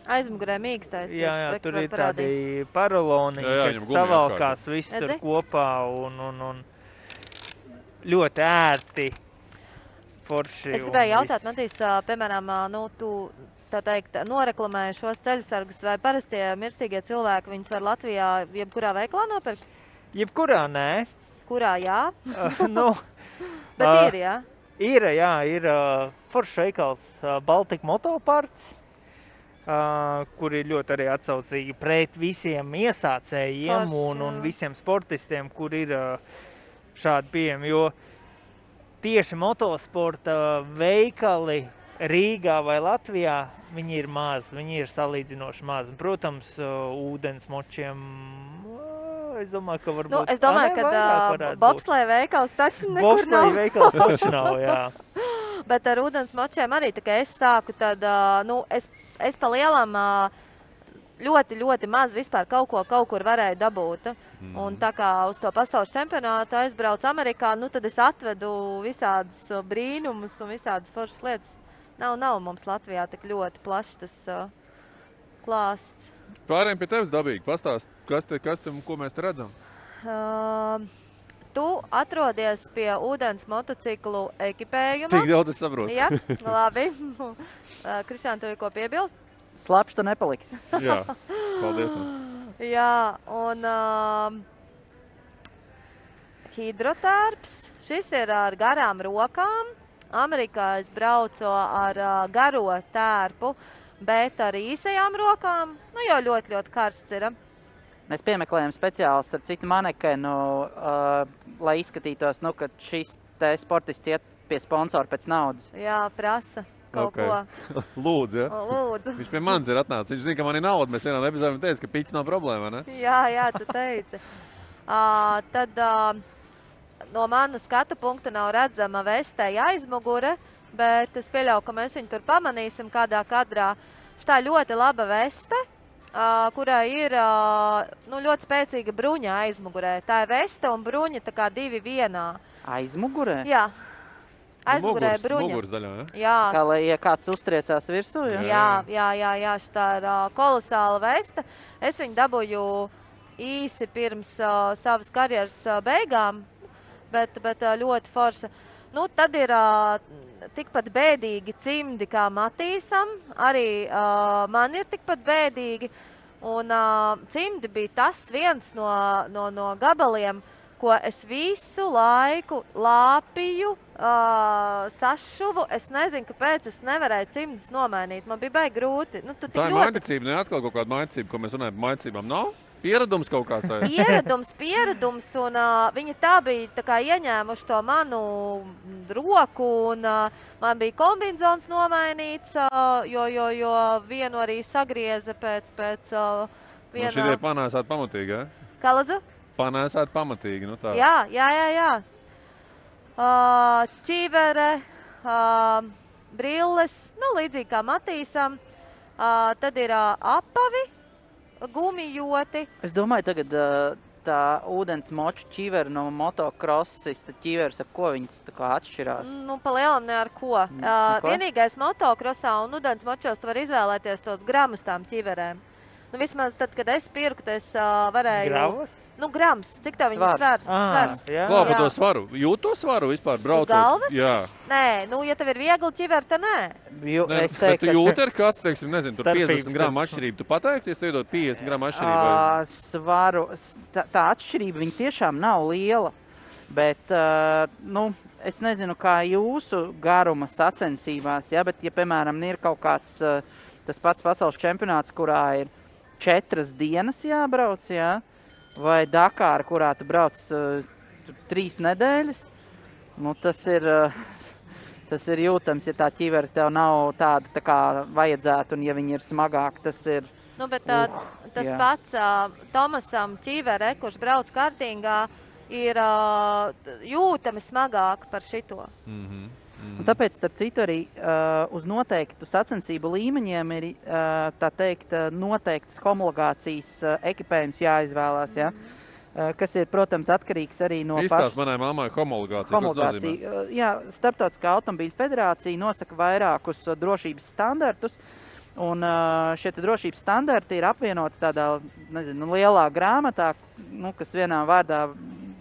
Aizmugurē mīkstais. Jā, tur ir tādi paraloni, kas savalkās viss tur kopā un ļoti ērti, forši. Es gribēju jautāt, Matīs, piemēram, tu... tā teikt, noreklamēja šos ceļasargus, vai parastie mirstīgie cilvēki viņus var Latvijā jebkurā veiklā nopirkt? Jebkurā nē. Kurā jā? Bet ir, jā? Ir foršs veikals Baltika Motoparts, kur ir ļoti arī atsaucīgi pret visiem iesācējiem un visiem sportistiem, kur ir šādi pieejami, jo tieši motosporta veikali Rīgā vai Latvijā, viņi ir mazi, viņi ir salīdzinoši mazi. Protams, ūdens močiem, es domāju, ka varbūt... Es domāju, ka bobsleja veikals taču nekur nav. Bobsleja veikals taču nav, jā. Bet ar ūdens močiem arī, tā kā es sāku, tad, es pa lielam ļoti, ļoti maz vispār kaut kur varēju dabūt. Un tā kā uz to pasaules čempionātu aizbraucu Amerikā, tad es atvedu visādas brīnumus un visādas foršas lietas. Nav mums Latvijā tik ļoti plašs tas klāsts. Pārējiem pie tevis dabīgi. Pastāst, ko mēs te redzam? Tu atrodies pie ūdens motociklu ekipējuma. Tik daudz es saprotu. Jā, labi. Krišān, tev ir ko piebilst? Slapš tu nepaliks. Jā, paldies. Jā, un hidrotērps. Šis ir ar garām rokām. Amerikā es braucu ar garo tērpu, bet ar īsajām rokām, jau ļoti, ļoti karsts ir. Mēs piemeklējam speciāli, starp citu, manekenu, lai izskatītos, ka šis te sportists iet pie sponsora pēc naudas. Jā, prasa. kaut ko. Lūdzu, ja? Lūdzu. Viņš pie manis ir atnācis. Viņš zina, ka man ir nauda. Mēs vienā epizodē teicu, ka piķis nav problēma, ne? Jā, tu teici. Tad no mana skatu punkta nav redzama vestei aizmugure, bet es pieļauju, ka mēs viņu tur pamanīsim kādā kadrā. Šitā ļoti laba veste, kurai ir ļoti spēcīga bruņa aizmugurē. Tā ir veste un bruņa tā kā divi vienā. Aizmugurē? Jā. Aizmugurē bruņa. Muguras daļā, ja? Jā. Kā lai ja kāds uztriecās virsū, ja? Jā, šitā ir kolosāla veste. Es viņu dabūju īsi pirms savas karjeras beigām, bet ļoti forša. Nu, tad ir tikpat bēdīgi cimdi kā Matīsam, arī man ir tikpat bēdīgi. Un cimdi bija tas viens no gabaliem, ko es visu laiku lāpīju, sašuvu. Es nezinu, kāpēc es nevarēju cimdus nomainīt. Man bija baigi grūti. Nu, tā ir maiticība, ne atkal kaut kāda maiticība, ko mēs runājam par maicībām. Nav? Pieredums kaut kāds? Pieredums, un viņi tā bija tā kā ieņēmuši to manu roku, un man bija kombinzons nomainīts, jo vienu arī sagrieza pēc viena... Nu, šitie panēsāt pamatīgi, ja? Kā lūdzu? Panēsāt pamatīgi, nu tā. Jā. Ķivere, brilles, nu līdzīgi kā Matīsam, tad ir apavi, gumijoti. Es domāju, tagad tā ūdens moču ķiveri no motokrosista ķiveres, ar ko viņas tā kā atšķirās? Nu, pa lielam ne ar ko. Vienīgais motokrosā un ūdens močos tu var izvēlēties tos gramus tām ķiverēm. Nu, vismaz tad, kad es pirku, es varēju... Gravas? Nu, grams. Cik tā viņa svars? Klā par to svaru. Jūt to svaru vispār braucot? Uz galvas? Jā. Nē, nu, ja tev ir viegli ķiver, tad nē. Bet tu jūti ar kāds, teiksim, nezinu, tur 50 gramu atšķirību. Tu pateikties, tu iedot 50 gramu atšķirību? Svaru, tā atšķirība viņa tiešām nav liela, bet, nu, es nezinu, kā jūsu garuma sacensībās, ja, bet, ja, piemēram, ir kaut kāds tas pats pasaules čempionāts, kurā ir 4 dienas jābrauc, jā, vai Dakāra, kurā tu brauc 3 nedēļas, nu tas ir jūtams, ja tā ķivera tev nav tāda tā kā vajadzētu, un ja viņa ir smagāka, tas ir... Nu, bet tas pats Tomasam ķivere, kurš brauc kartingā, ir jūtami smagāka par šito. Un tāpēc, starp citu, arī uz noteiktu sacensību līmeņiem ir, tā teikt, noteiktas homologācijas ekipējums jāizvēlās, ja? Kas ir, protams, atkarīgs arī no pašas... Izstāst manai mammai homologācija. Jā, Starptautiskā automobīļu federācija nosaka vairākus drošības standartus, un šie drošības standarti ir apvienoti tādā, nezinu, lielā grāmatā, nu, kas vienā vārdā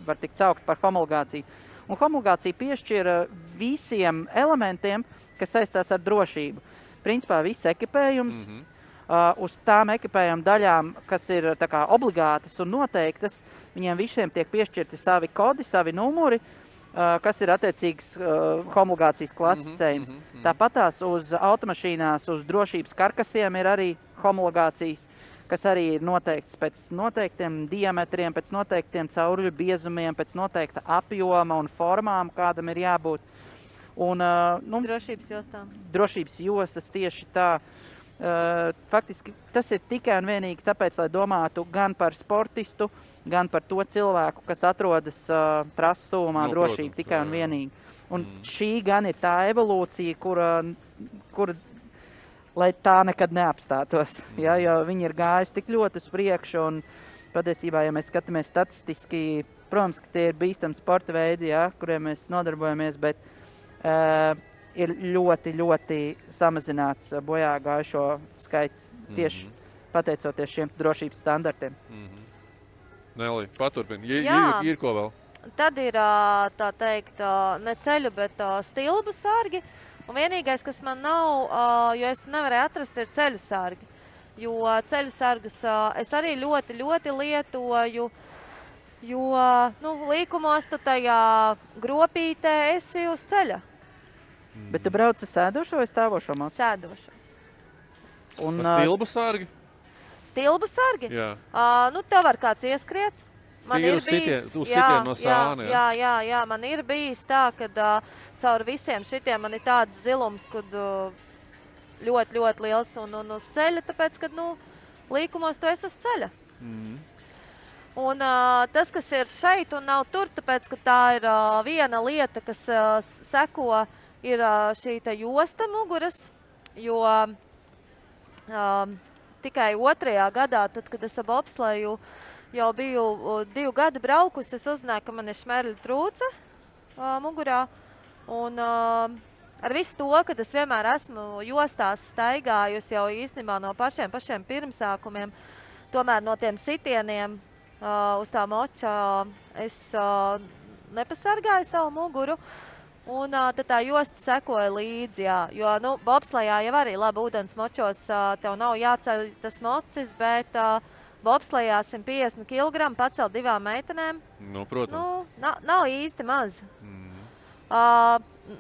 var tikt saukt par homologāciju. Un homologācija piešķira visiem elementiem, kas saistās ar drošību. Principā viss ekipējums, uz tām ekipējuma daļām, kas ir tā kā obligātas un noteiktas, viņiem visiem tiek piešķirti savi kodi, savi numuri, kas ir attiecīgs homologācijas klasicējums. Tāpatās uz automašīnās, uz drošības karkasiem ir arī homologācijas, kas arī ir noteikts pēc noteiktiem diametriem, pēc noteiktiem cauruļu biezumiem, pēc noteikta apjoma un formām, kādam ir jābūt. Un, nu, drošības jostām. Drošības jostas tieši tā. Faktiski tas ir tikai un vienīgi tāpēc, lai domātu gan par sportistu, gan par to cilvēku, kas atrodas trases tuvumā, drošība tikai un vienīgi. Un šī gan ir tā evolūcija, kura lai tā nekad neapstātos, ja, jo viņi ir gājuši tik ļoti uz priekšu, un patiesībā, ja mēs skatāmies statistiski, protams, ka tie ir bīstami sporta veidi, ja, kuriem mēs nodarbojamies, bet ir ļoti, ļoti samazināts bojā gājušo skaits tieši pateicoties šiem drošības standartiem. Nelī, paturpini. Ir ko vēl? Tad ir, tā teikt, ne ceļu, bet stilbu sargi. Un vienīgais, kas man nav, jo es nevarēju atrast, ir ceļu sargi. Jo ceļu sargus es arī ļoti, ļoti lietoju, jo, nu, līkumos tu tajā gropītē esi uz ceļa. Bet tu brauc ar sēdošo vai stāvošo mācu? Sēdošo. Un stilbu sargi? Stilbu sargi? Jā. Nu, tev var kāds ieskriet. Man ir bijis, no sāna, jā, man ir bijis tā, ka caur visiem šitiem man ir tāds zilums, kad ļoti, ļoti liels un uz ceļa, tāpēc, ka, līkumos tu esi uz ceļa. Un tas, kas ir šeit un nav tur, tāpēc, ka tā ir viena lieta, kas seko, ir šī josta muguras, jo tikai 2. gadā, tad, kad es ap bobsleju jau biju 2 gadi braukusi, es uzzināju, ka man ir šmerļu trūce mugurā. Un ar visu to, kad es vienmēr esmu jostās staigājusi jau īstenībā no pašiem pirmsākumiem, tomēr no tiem sitieniem uz tā moča es nepasargāju savu muguru. Un tad tā josta sekoja līdzi, jā. Jo, bobslejā jau arī labi ūdens močos tev nav jāceļ tas mocis, bet bobslejā 150 kg pacelt 2 meitenēm. Protams. Nav īsti maz.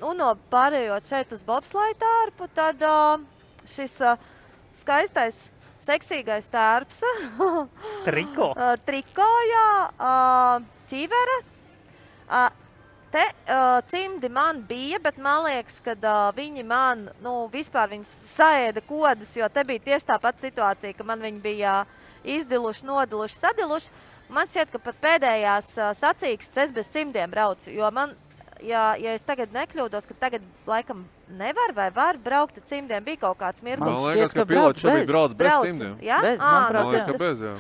Un pārējot šeit uz bobsleju tārpu, tad šis skaistais, seksīgais tārps. Triko. Triko, jā. Ķivere. Te cimdi man bija, bet man liekas, ka viņi man, vispār viņi saēda kodas, jo te bija tieši tā pat situācija, ka man viņi bija izdiluši, nodiluši, sadiluši. Man šķiet, ka pat pēdējās sacīkstes es bez cimdiem braucu, jo man, ja es tagad nekļūdos, ka tagad laikam nevar vai var braukt ar cimdiem, bija kaut kāds mirklis. Man liekas, ka pilots šobrīd brauc bez cimdiem. Ja? Bez, man liekas, ka bez, jā.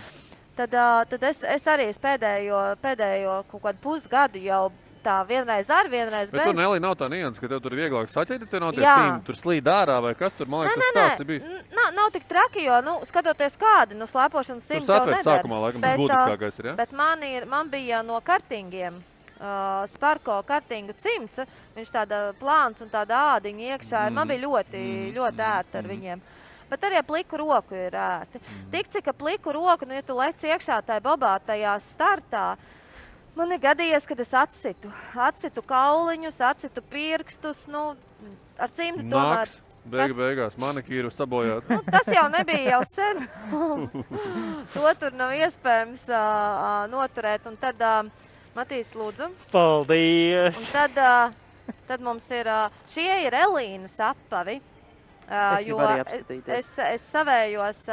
Tad es arī pēdējo kaut kādu pusgadu jau tā vienreiz vienreiz bez. Bet tur, Nelī, nav tā nianses, ka tev tur vieglāk saķēt, te nav tie cimdi, tur slīd ārā vai kas tur, man liekas, tas stāsts bija. Nav tik traki, jo, skatoties kādi, slēpošanas cimdi tev nedara. Tur sākumā, laikam, tas būtiskākais ir, ja? Bet man bija no kartingiem, Sparko kartingu cimds, viņš tāda plāns un tāda ādiņa iekšā, man bija ļoti ērti ar viņiem. Bet arī pliku roku ir ērti. Tik cik pliku roku, ja tu lec iekšā tajā bobā, tajā startā, man ir gadījies, kad es atsitu kauliņus, atsitu pirkstus, ar cimdi tomēr. Beigās manikīru sabojāt. Tas jau nebija jau sen. To tur nav iespējams noturēt. Un tad, Matīs, lūdzu. Paldies! Un tad mums ir, šie ir Elīnas apavi. Jo es savējos,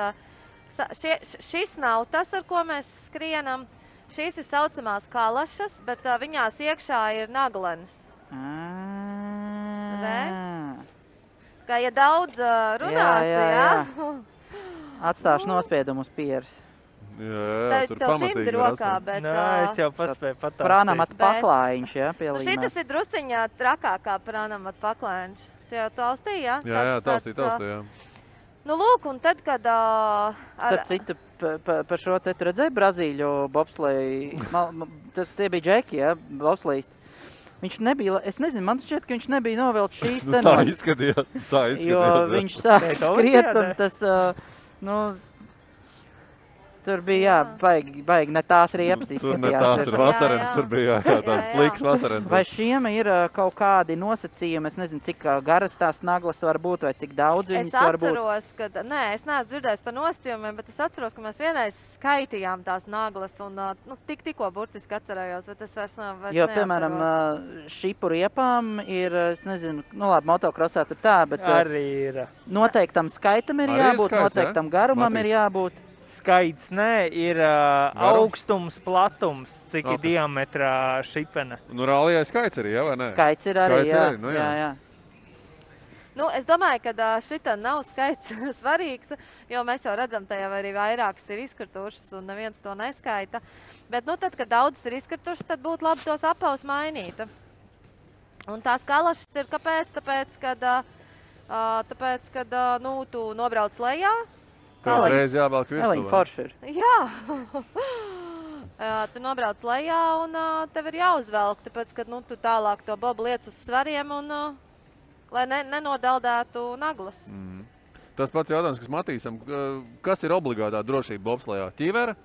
šis nav tas, ar ko mēs skrienam. Šīs ir saucamās kalašas, bet viņās iekšā ir naglenes. Kā ja daudz runās, jā. Atstāšu nospiedumu uz pieres. Jā, tur pamatīgi rokā, bet... es jau paspēju patāstīt. Prānamat paklājiņš, jā, pielīmē. Šitas ir drusciņā trakākā prānamat paklājiņš. Tu jau taustīji, jā? Jā, taustīji, jā. Lūk, un tad, kad... Starp citu, par šo te tu redzēji Brazīļu bobsleju, tie bija džeki, jā, bobslejist. Viņš nebija, es nezinu, man šķiet, ka viņš nebija novelts šīs tenos. Tā izskatījās. Jo viņš sāk skriet un tas, tur bija, baigi ne tās riepas izskatījās. Tur ne tās ir vasarens, tur bija, tāds pliks vasarens. Vai šiem ir kaut kādi nosacījumi, es nezinu, cik garas tās naglas var būt, vai cik daudz viņas var būt? Es atceros, ka, es neesmu dzirdējis par nosacījumiem, bet es atceros, ka mēs vienreiz skaitījām tās naglas un tikko burtiski atcerējos, bet es vairs neatceros. Jo, piemēram, šipu riepām ir, es nezinu, labi, motokrosā tur tā, bet arī ir. Noteiktam skaitam ir jābūt, noteiktam garumam ir jābūt. Skaits, ir augstums, platums, cik ir diametrā šipena. Rālijā skaits arī, jā, vai ne? Skaits ir arī, jā. Es domāju, ka šita nav skaits svarīgs, jo mēs jau redzam, tajā arī vairākas ir izkritušas un neviens to neskaita. Bet, tad, kad daudzas ir izkritušas, tad būtu labi tos apavus mainīt. Un tās kalašas ir kāpēc? Tāpēc, kad tu nobrauc lejā, Tev reiz jāvelk virsū. Eliņa forši ir. Jā. Tu nobrauc lejā un tev ir jāuzvelk, tāpēc, ka tu tālāk to bobu liec uz svariem un lai nenodaldētu naglas. Tas pats jautājums, kas Matīsam, kas ir obligātā drošība bobslejā? Ķivere?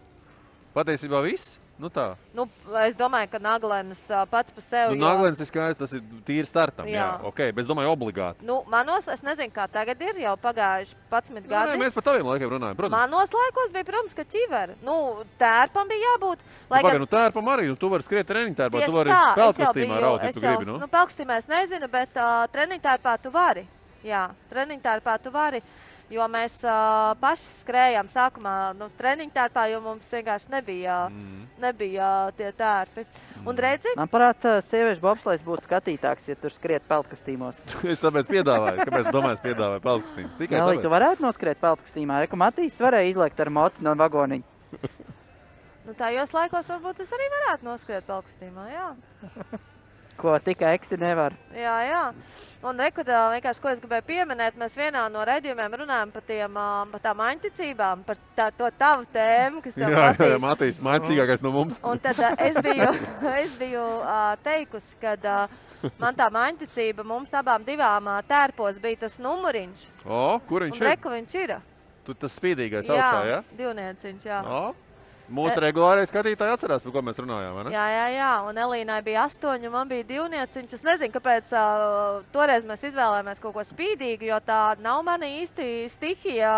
Patiesībā viss? Nu tā. Nu, es domāju, ka Naglenes pats par sevi... Naglenes ir skaidrs, tas ir tīri startam, jā. Ok, bet es domāju obligāti. Nu, manos, es nezinu, kā tagad ir, jau pagājuši 11 gadi. Nē, mēs par taviem laikiem runājam, protams. Manos laikos bija, protams, ka ķiveri. Nu, tērpam bija jābūt. Nu, tērpam arī, tu vari skriet treniņtērpā, tu vari pelkastīmā raut, ja tu gribi, nu? Nu, pelkastīmā es nezinu, bet treniņtērpā tu vari. Jā, treniņtērpā tu vari. Jo mēs paši skrējām sākumā treniņtērpā, jo mums vienkārši nebija tie tērpi. Un redzi? Man parāda, sieviešu bobslejs būtu skatītāks, ja tur skriet peltkastīmos. Es tāpēc piedāvāju. Kāpēc domāju, es piedāvāju peltkastīmus? Tikai Nelī, tāpēc. tu varētu noskriet peltkastīmā. Reku Matīs varēja izlekt ar moci no vagoniņa. Nu, tajos laikos varbūt es arī varētu noskriet peltkastīmā, jā. Ko tikai Eksi nevar. Jā. Un reku, vienkārši, ko es gribēju pieminēt, mēs vienā no raidījumiem runājam par tām aņticībām, par to tavu tēmu, kas tev patīk. Jā, Matīs, maicīgākais no mums. Un tad es biju teikusi, kad man tā aņticība mums abām divām tērpos bija tas numuriņš. Kur viņš ir? Un reku viņš ir. Tu tas spīdīgais augšā, jā? Jā, divnieciņš, jā. Mūsu regulārais skatītāji atcerās, par ko mēs runājām, vai ne? Jā. Un Elīnai bija 8, un man bija 2 nieciņš. Es nezinu, kāpēc toreiz mēs izvēlējāmies kaut ko spīdīgu, jo tā nav mani īsti stihija,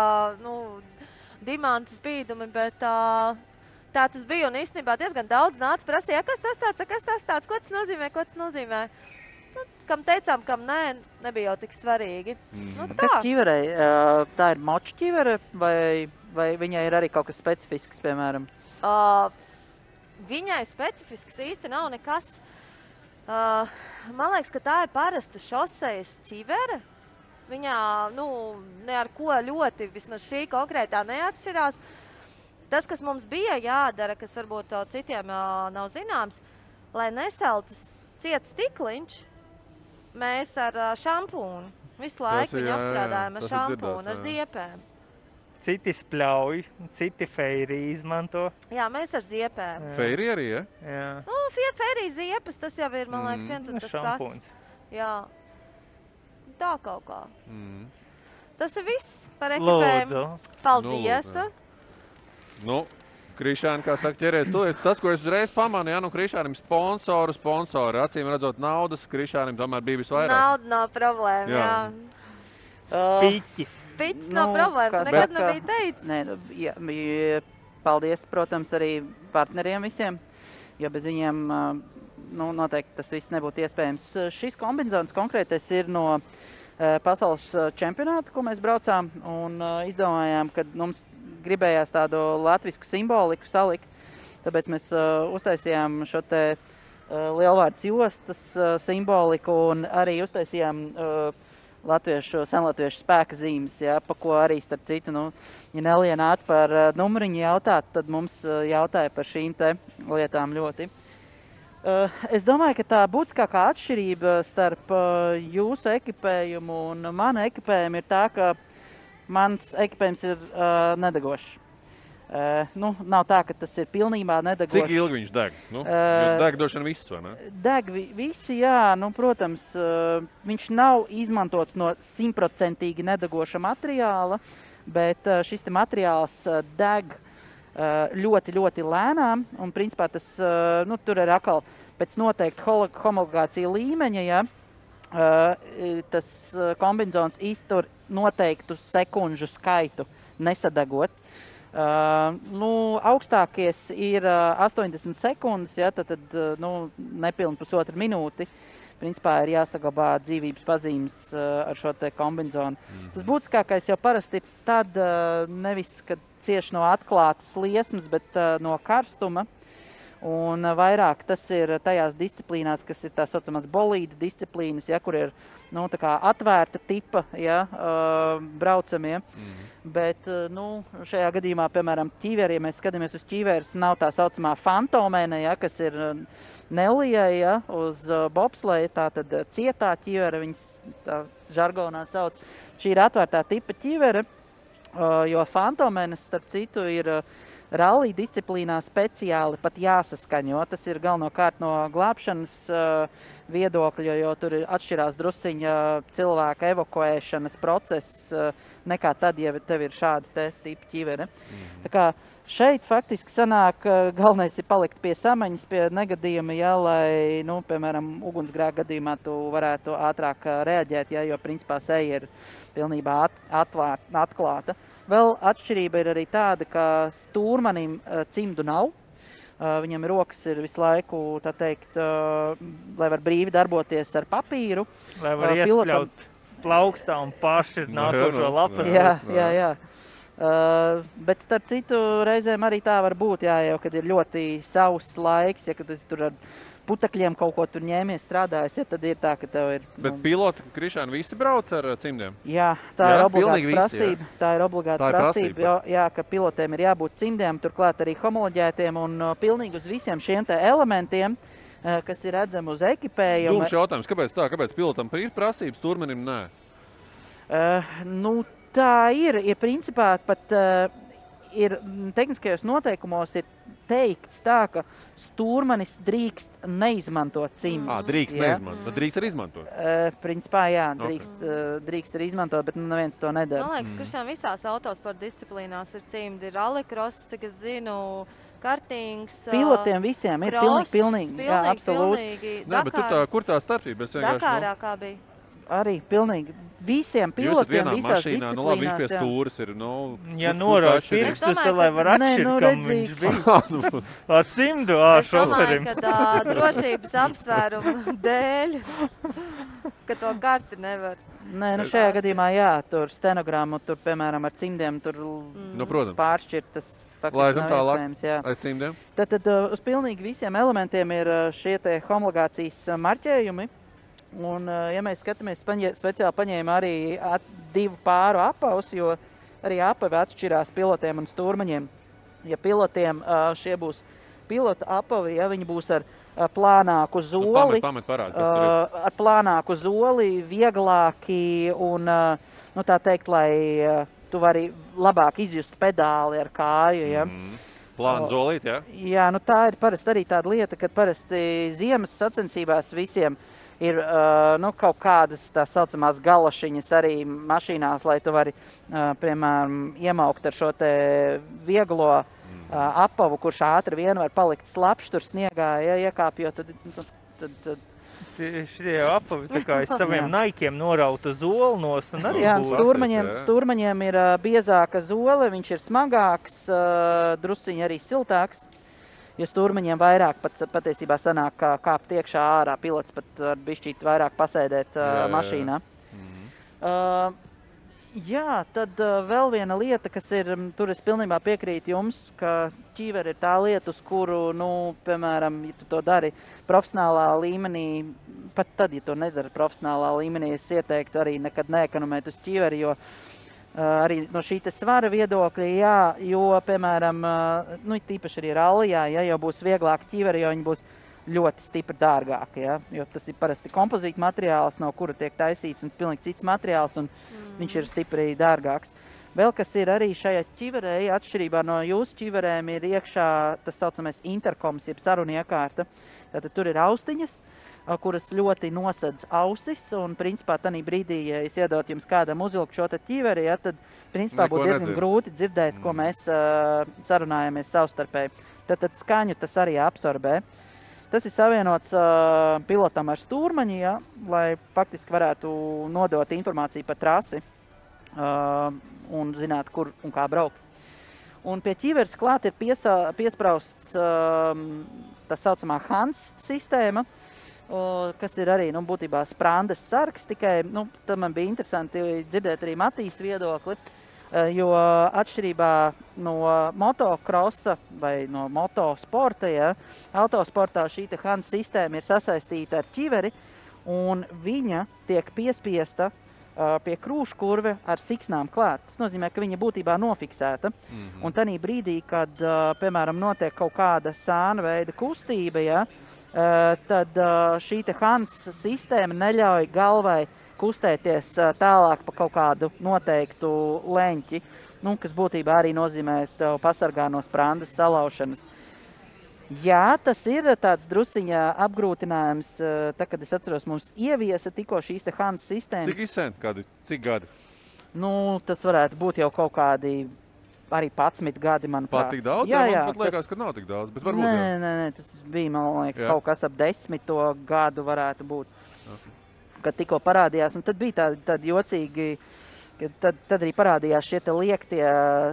dimantu spīdumi, bet tā tas bija. Un īstenībā diezgan daudz nāca prasīja, kas tas tāds, ko tas nozīmē. Nu, kam teicām, kam nē, nebija jau tik svarīgi. Nu, tā. Kas ķiverei? Tā ir moču ķivere vai viņai ir arī kaut kas specifisks, piemēram? Viņai specifisks īsti nav nekas. Man liekas, ka tā ir parasta šosejas ķivere. Viņā, ne ar ko ļoti, vismaz šī konkrētā neatšķirās. Tas, kas mums bija jādara, kas varbūt citiem nav zināms, lai nesaltu ciet stikliņš, mēs ar šampūnu visu laiku viņu apstrādājam ar šampūnu, ar ziepēm. Citi spļauj, citi feiri izmanto. Jā, mēs ar ziepēm. Feiri arī, ja? Jā. Nu, feiri ziepes, tas jau ir, man liekas, viens un tas pats. Jā. Tā kaut kā. Tas ir viss par ekipējumu. Paldies. Krišāni, kā saka, ķeries tu. Tas, ko es uzreiz pamanīju, Krišānim sponsori. Acīm redzot naudas, Krišānim tomēr bija visvairāk. Nauda nav problēma, jā. Piķis nav problēma, tu nekad nebija teicis. Nē, paldies, protams, arī partneriem visiem, jo bez viņiem noteikti tas viss nebūtu iespējams. Šis kombinzons konkrētais ir no pasaules čempionāta, ko mēs braucām, un izdomājām, ka mums gribējās tādu latvisku simboliku salikt, tāpēc mēs uztaisījām šo te lielvārds jostas simboliku un arī uztaisījām senlatviešu spēka zīmes, pa ko arī, starp citu, ja Nelija nāca par numuriņu jautāt, tad mums jautāja par šīm te lietām ļoti. Es domāju, ka tā būtiskākā atšķirība starp jūsu ekipējumu un manu ekipējumu ir tā, ka mans ekipējums ir nedegošs. Nav tā, ka tas ir pilnībā nedegošs. Cik ilgi viņš deg? Deg došana viss, vai ne? Deg visi, jā. Protams, viņš nav izmantots no 100% nedegoša materiāla, bet šis te materiāls deg ļoti, ļoti lēnām. Un, principā, tas tur ir atkal pēc noteikti homologācija līmeņa, ja tas kombinzons iztur noteiktu sekundžu skaitu nesadegot. Augstākies ir 80 sekundes, ja, tad nepilni pusotru minūti. Principā ir jāsaglabā dzīvības pazīmes ar šo te kombinzonu. Tas būtiskākais jau parasti tad nevis, kad cieši no atklātas liesmas, bet no karstuma. Un vairāk tas ir tajās disciplīnās, kas ir tā saucamās bolīda disciplīnas, ja, kur ir tā kā atvērta tipa braucamie. Bet šajā gadījumā, piemēram, ķīveri, ja mēs skatāmies uz ķīveres, nav tā saucamā fantomēne, ja, kas ir Nelijai, ja, uz bobsleja, tā tad cietā ķīvere, viņas tā žargonā sauc. Šī ir atvērtā tipa ķīvere, jo fantomēnes, starp citu, ir rallija disciplīnā speciāli pat jāsaskaņo. Tas ir galvenokārt no glābšanas viedokļa, jo tur atšķirās drusciņa cilvēka evakuēšanas process nekā tad, ja tev ir šāda te tipa ķivere. Tā kā šeit faktiski sanāk, galvenais ir palikt pie samaņas, pie negadījuma, ja, lai, nu, piemēram, ugunsgrēka gadījumā tu varētu ātrāk reaģēt, ja, jo principā seja ir pilnībā atklāta. Vēl atšķirība ir arī tāda, ka stūrmanim cimdu nav. Viņam rokas ir visu laiku, tā teikt, lai var brīvi darboties ar papīru. Lai var iespļaut plaukstā un paši nākošo lapas. Jā. Bet starp citu reizēm arī tā var būt, jā, jau, kad ir ļoti sauss laiks, ja kad es tur ar putekļiem kaut ko tur ņēmies strādājis, ja tad ir tā, ka tev ir... Bet piloti, Krišāni, visi brauc ar cimdiem? Jā, tā ir obligāta prasība. Tā ir obligāta prasība, jā, ka pilotiem ir jābūt cimdiem, turklāt arī homoloģētiem un pilnīgi uz visiem šiem te elementiem, kas ir redzami uz ekipējumu. Dūms jautājums, kāpēc tā? Kāpēc pilotam ir prasības, stūrmanim nē? Tā ir principā pat ir tehniskajos noteikumos ir teikts tā, ka stūrmanis drīkst neizmantot cimdus. Drīkst neizmantot, bet drīkst arī izmantot? Principā jā, drīkst arī izmantot, bet neviens to nedara. Man liekas, Krišān, visās autosporta disciplīnās ir cimdi, ir rallycross, cik es zinu, kartings, pilotiem visiem ir pilnīgi, jā, absolūti. Nē, bet kur tā starpība? Dakārā kā bija? Arī pilnīgi visiem pilotiem visās disciplīnās. Nu labi, viņš pie stūras ir, ja norāda pirkstus, tad lai var atšķirt, kam viņš bija. Ar cimdu, šoferim. Es domāju, ka drošības apsvērumu dēļ, ka to karti nevar. Nē, šajā gadījumā jā, tur stenogrammu, tur, piemēram, ar cimdiem, tur pāršķirt tas faktiski nav iespējams, jā. Aiz cimdiem? Tad uz pilnīgi visiem elementiem ir šie te homologācijas marķējumi. Un, ja mēs skatāmies, speciāli paņēma arī 2 pāru apavus, jo arī apavi atšķirās pilotiem un stūrmaņiem. Ja pilotiem šie būs pilota apavi, ja viņi būs ar plānāku zoli, ar plānāku zoli, vieglāki un, nu tā teikt, lai tu vari labāk izjust pedāli ar kāju, ja. Plāna zolīt, jā? Jā, nu tā ir parasti arī tāda lieta, kad parasti ziemas sacensībās visiem ir kaut kādas tā saucamās galašiņas arī mašīnās, lai tu vari, piemēram, iemaukt ar šo te vieglo apavu, kurš ātri vien var palikt slapšs tur sniegā, ja iekāpjot, tad Šie apavi tā kā saviem naikiem norauta zoli nost un arī stūrmaņiem ir biezāka zole, viņš ir smagāks, drusciņi arī siltāks. Jo stūrmaņiem vairāk patiesībā sanāk kāpt iekšā ārā, pilots pat var bišķīt vairāk pasēdēt mašīnā. Jā, tad vēl viena lieta, kas ir, tur es pilnībā piekrītu jums, ka ķīveri ir tā lieta, uz kuru, piemēram, ja tu to dari profesionālā līmenī, pat tad, ja to nedara profesionālā līmenī, es ieteiktu arī nekad neekonomēt uz ķīveri, jo arī no šī te svara viedokļa, jā, jo, piemēram, tīpaši arī rallijā, ja jau būs vieglāk ķīveri, jo viņi būs ļoti stipri dārgāki, ja, jo tas ir parasti kompozīta materiāls, no kura tiek taisīts un pilnīgi cits materiāls, un viņš ir stipri dārgāks. Vēl kas ir arī šajā ķiverē, atšķirībā no jūsu ķiverēm, ir iekšā tas saucamais interkoms, jeb sarunu iekārta. Tātad tur ir austiņas, kuras ļoti nosedz ausis, un principā tanī brīdī, ja es iedot jums kādam uzvilkt šo ķiveri, ja, tad principā būtu diezgan grūti dzirdēt, ko mēs sarunājamies savstarpēji. Tad skaņu tas arī absorbē. Tas ir savienots pilotam ar stūrmaņu, ja, lai faktiski varētu nodot informāciju par trasi un zināt, kur un kā braukt. Un pie ķiveres klāt ir piesprausts tā saucamā HANS sistēma, kas ir arī, būtībā sprandes sargs, tikai, tad man bija interesanti dzirdēt arī Matīs viedokli, jo atšķirībā no motokrosa vai no motosporta, ja, autosportā šī te HANS sistēma ir sasaistīta ar ķiveri, un viņa tiek piespiesta pie krūškurve ar siksnām klāt. Tas nozīmē, ka viņa būtībā nofiksēta. Un tanī brīdī, kad, piemēram, notiek kaut kāda sāna veida kustība, ja, tad šī te HANS sistēma neļauj galvai kustēties tālāk pa kaut kādu noteiktu leņķi, kas būtībā arī nozīmē tev pasargā no sprandas salaušanas. Jā, tas ir tāds drusiņā apgrūtinājums, kad es atceros, mums ieviesa tikko šīs te HANS sistēmas. Cik izsen? Cik gadi? Nu, tas varētu būt jau kaut kādi arī 11 gadi, manuprāt. Pat tik daudz? Jā, man pat liekas, ka nav tik daudz, bet varbūt jau. Nē, tas bija, man liekas, Jā. kaut kas ap 10 gadu varētu būt, kad tikko parādījās. Un tad bija tādi jocīgi, ka tad arī parādījās šie te liektie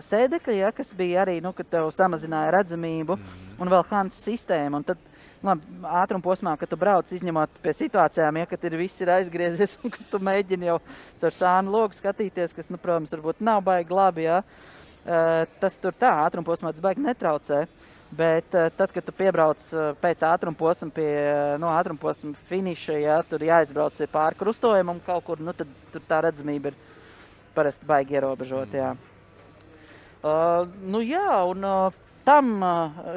sēdekļi, ja, kas bija arī, kad tev samazināja redzamību, un vēl Hans sistēma. Un tad, ātrumposmā, kad tu brauc izņemot pie situācijām, ja, kad viss ir aizgriezies un kad tu mēģini jau caur sānu logu skatīties, kas, protams, varbūt nav baigi labi, ja. Tas tur tā, ātrumposmā tas baigi netraucē, bet tad, kad tu piebrauc pēc ātrumposma pie ātrumposma finiša, ja, tur jāizbrauc pāri krustojumam kaut kur, tad tur tā redzamība ir parasti baigi ierobežot, jā. Un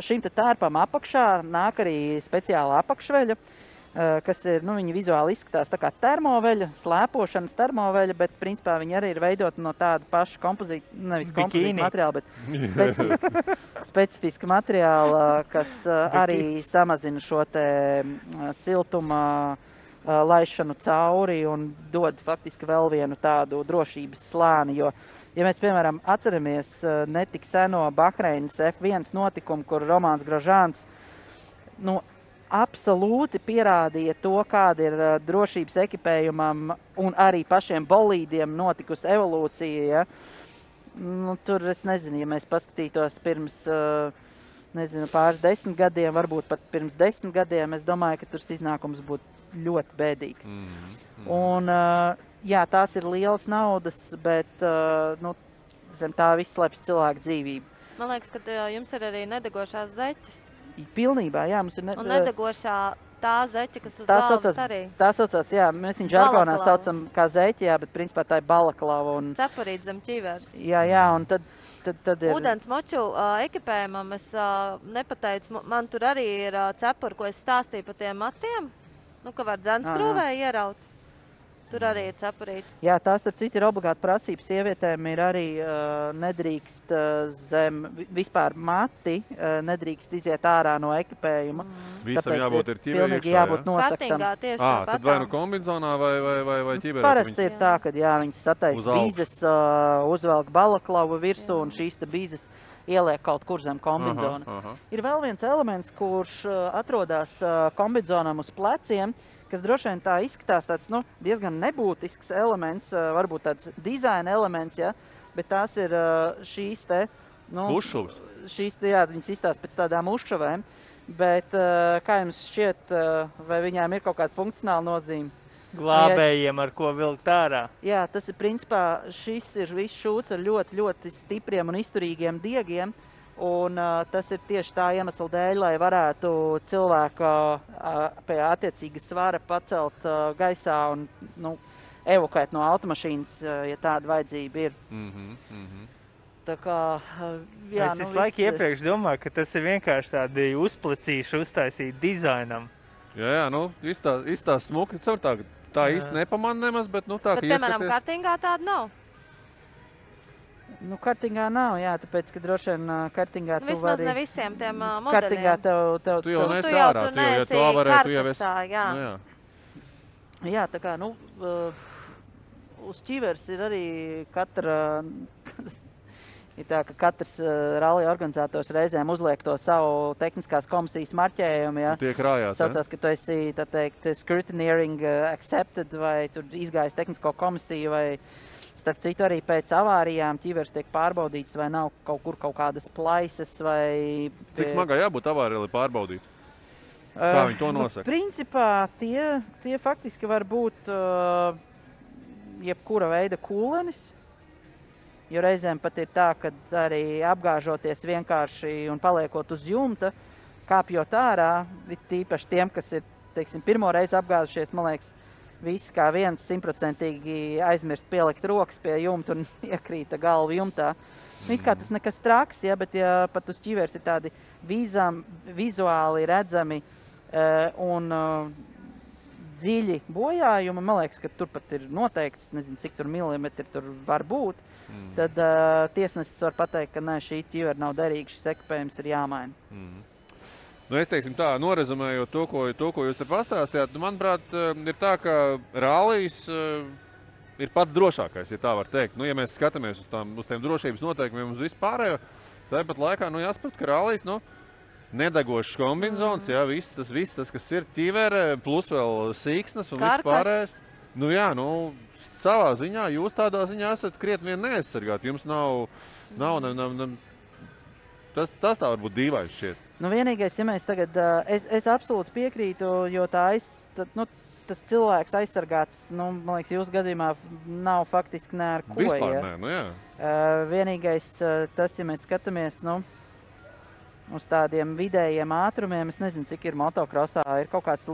šim te tērpam apakšā nāk arī speciāla apakšveļa, kas ir, viņi vizuāli izskatās tā kā termoveļa, slēpošanas termoveļa, bet principā viņi arī ir veidoti no tāda paša kompozīta materiāla, bet specifiska materiāla, kas arī samazina šo te siltuma laišanu cauri un dod faktiski vēl vienu tādu drošības slāni, jo ja mēs, piemēram, atceramies netik seno Bahreinas F1 notikumu, kur Romāns Grožāns absolūti pierādīja to, kāda ir drošības ekipējumam un arī pašiem bolīdiem notikusi evolūcija. Ja? Tur es nezinu, ja mēs paskatītos pirms pāris 10 gadiem, varbūt pat pirms 10 gadiem, es domāju, ka tur iznākums būtu ļoti bēdīgs. Un jā, tās ir lielas naudas, bet zem tā viss slēpjas cilvēku dzīvību. Man liekas, ka jums ir arī nedegošās zeķes. Pilnībā, jā, mums ir... Un nedegošā tā zeķe, kas uz galvas arī. Tā saucās, jā, mēs viņu žargonā saucam kā zeķe, jā, bet principā tā ir balaklava. Cepurīt zem ķiveres. Jā, un tad ir... Ūdens moču ekipējumam es nepateicu, man tur arī ir cepuri, ko es stāstīju pa tiem matiem, ka var dzenskrūvē ieraut. Tur arī ir cepurīti. Jā, tās starp citu ir obligāti prasības. Sievietēm ir arī nedrīkst zem vispār mati, nedrīkst iziet ārā no ekipējuma. Visam jābūt ir ķivē iekšā, jābūt nosaktam. Kartingā tieši tāpat. Tad vai nu kombinzonā vai ķiverē? Parasti ir tā, ka viņas sataisa bīzes, uzvelk balaklavu virsū un šīs te bīzes ieliek kaut kur zem kombinzona. Ir vēl viens elements, kurš atrodas kombinzonam uz pleciem, kas droši vien tā izskatās tāds, diezgan nebūtisks elements, varbūt tāds dizaina elements, ja, bet tās ir šīs te, Ušuvas. Šīs te, jā, viņas izstās pēc tādām ušuvēm, bet kā jums šķiet, vai viņām ir kaut kāda funkcionāla nozīme? Glābējiem, ar ko vilkt ārā. Jā, tas ir principā, šis ir viss šūts ar ļoti, ļoti stipriem un izturīgiem diegiem. Un tas ir tieši tā iemesla dēļ, lai varētu cilvēku pie attiecīga svara pacelt gaisā un evokēt no automašīnas, ja tāda vajadzība ir. Tā kā, jā, es visu laiku iepriekš domāju, ka tas ir vienkārši tādi uzplecīši uztaisīt dizainam. Jā, izstās smuki, tā īsti nepamanā nemaz, bet tā, ka ieskaties. Bet, piemēram, kartingā tāda nav. Kartingā nav, jā, tāpēc, ka droši vien kartingā tu vari... Vismaz ne visiem tiem modeļiem. Kartingā tev... Tu jau nesi ārā, tu jau to varētu, tu jau esi... Jā, tā kā, uz ķiveres ir arī katra... Ir tā, ka katrs rallija organizators reizēm uzliek to savu tehniskās komisijas marķējumu, ja. Tie krājās, saucās, ka tu esi, tā teikt, scrutineering accepted, vai tur izgājis tehnisko komisiju, vai starp citu arī pēc avārijām ķiveres tiek pārbaudīts, vai nav kaut kur kaut kādas plaisas, vai... Cik smagā jābūt avārijai, lai pārbaudītu? Kā viņi to nosaka? Principā tie faktiski var būt jebkura veida kūlenis. Jo reizēm pat ir tā, ka arī apgāžoties vienkārši un paliekot uz jumta, kāpjot ārā, tīpaši tiem, kas ir, teiksim, pirmo reizi apgāzušies, man liekas, visi kā viens 100% aizmirst pielikt rokas pie jumta un iekrīta galva jumtā. It kā tas nekas traks, ja, bet ja pat uz ķiveres ir tādi vizuāli redzami un dziļi bojājumi, man liekas, ka tur pat ir noteikts, nezinu, cik tur milimetri tur var būt, tad tiesnesis var pateikt, ka nē, šī ķivera nav derīga, šis ekipējums ir jāmaina. Es teiksim tā, norezumējot to, ko jūs te pastāstījāt, manuprāt, ir tā, ka rallijas ir pats drošākais, ja tā var teikt. Ja mēs skatāmies uz tiem drošības noteikumiem uz vispārējo, tāpat laikā, jāsaprot, ka rallijas, nedegošas kombinzonas, viss tas, kas ir ķivere, plus vēl sīksnes un vispārējais. Savā ziņā, jūs tādā ziņā esat krietni vien neaizsargāti. Jums nav tas tā varbūt dīvains šķiet. Vienīgais, ja mēs tagad, es absolūti piekrītu, jo tas cilvēks aizsargāts, man liekas, jūsu gadījumā nav faktiski ne ar ko. Vispār nē, Vienīgais tas, ja mēs skatāmies, uz tādiem vidējiem ātrumiem, es nezinu, cik ir motokrosā, ir kaut kāds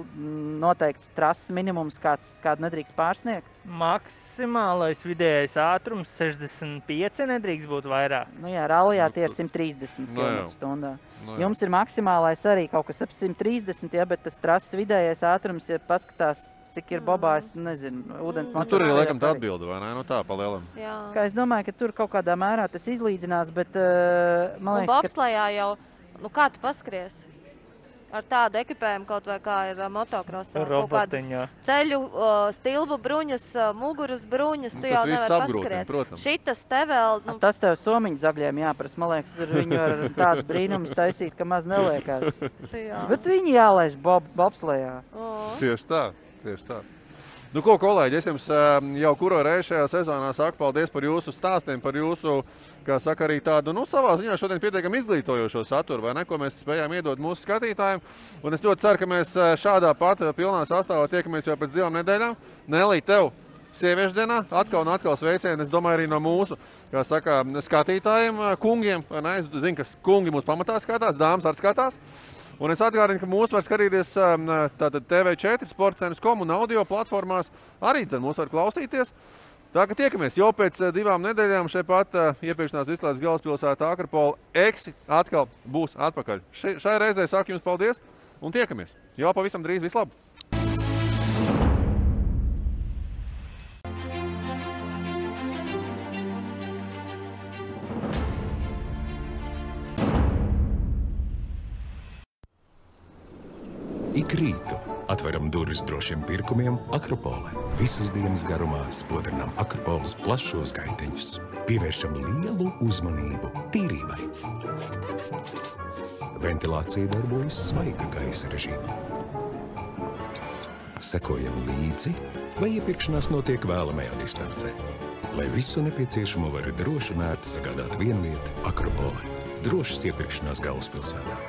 noteikts trases minimums, kādu nedrīkst pārsniegt? Maksimālais vidējais ātrums 65 nedrīkst būt vairāk. Rallijā tie ir 130 km/h. Jums ir maksimālais arī kaut kas ap 130, bet tas trases vidējais ātrums, ja paskatās, cik ir bobā, es nezinu, ūdens motorā. Tur ir laikam tā atbilde, vai ne? Tā pa lielam. Es domāju, ka tur kaut kādā mērā tas izlīdzinās, bet man liekas, un bobslejā jau, kā tu paskries? Ar tādu ekipējumu kaut vai kā ir motokrosā. Robotiņā. Ceļu, stilbu bruņas, muguras bruņas, tu jau nevar paskriet. Šitas te vēl... Tas tev somiņu zagļiem jāprast. Man liekas, tur viņu ar tāds brīnums taisīt, ka maz neliekās. Bet viņi jālaiž bobslejā. Tieši tā. Ko, kolēģi, es jums jau kuro reizi šajā sezonā saku paldies par jūsu stāstiem, par jūsu, kā saka, arī tādu, savā ziņā šodien pietiekam izglītojošo saturu, vai ne, ko mēs spējām iedot mūsu skatītājiem. Un es ļoti ceru, ka mēs šādā pat pilnā sastāvā tiekamies jau pēc 2 nedēļām. Nelī, tev sieviešu dienā atkal un atkal sveicieni, es domāju, arī no mūsu, kā saka, skatītājiem, kungiem, vai ne, es zinu, ka kungi mūs pamatā skatās, dāmas arī skatās. Un es atgādinu, ka mūs var skatīties TV4, sportcenas.com un audio platformās. Arī mūs var klausīties. Tā ka tiekamies jau pēc 2 nedēļām šeit pat iepirkšanās izslēdz galvaspilsētā Akrapola Eksi atkal būs atpakaļ. Šai reizē saku jums paldies un tiekamies. Jau pavisam drīz, vislabāk! Ik rītu atveram durvis drošiem pirkumiem Akropole. Visas dienas garumā spodrinām Akropoles plašos gaiteņus. Pievēršam lielu uzmanību tīrībai. Ventilācija darbojas svaiga gaisa režīmā. Sekojam līdzi, vai iepirkšanās notiek vēlamajā distancē. Lai visu nepieciešamo var droši un ērti sagādāt vienvieta Akropole. Drošas iepirkšanās galvaspilsētā.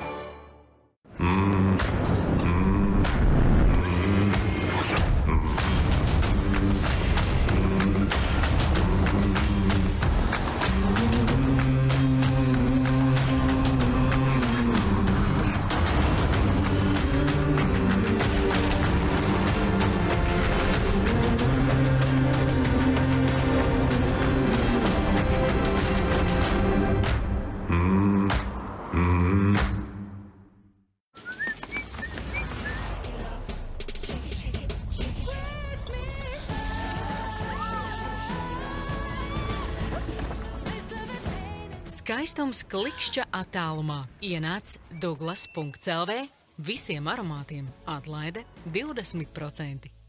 Skaistums klikšķa attālumā. Ienāc Douglas.lv. Visiem aromātiem atlaide 20%.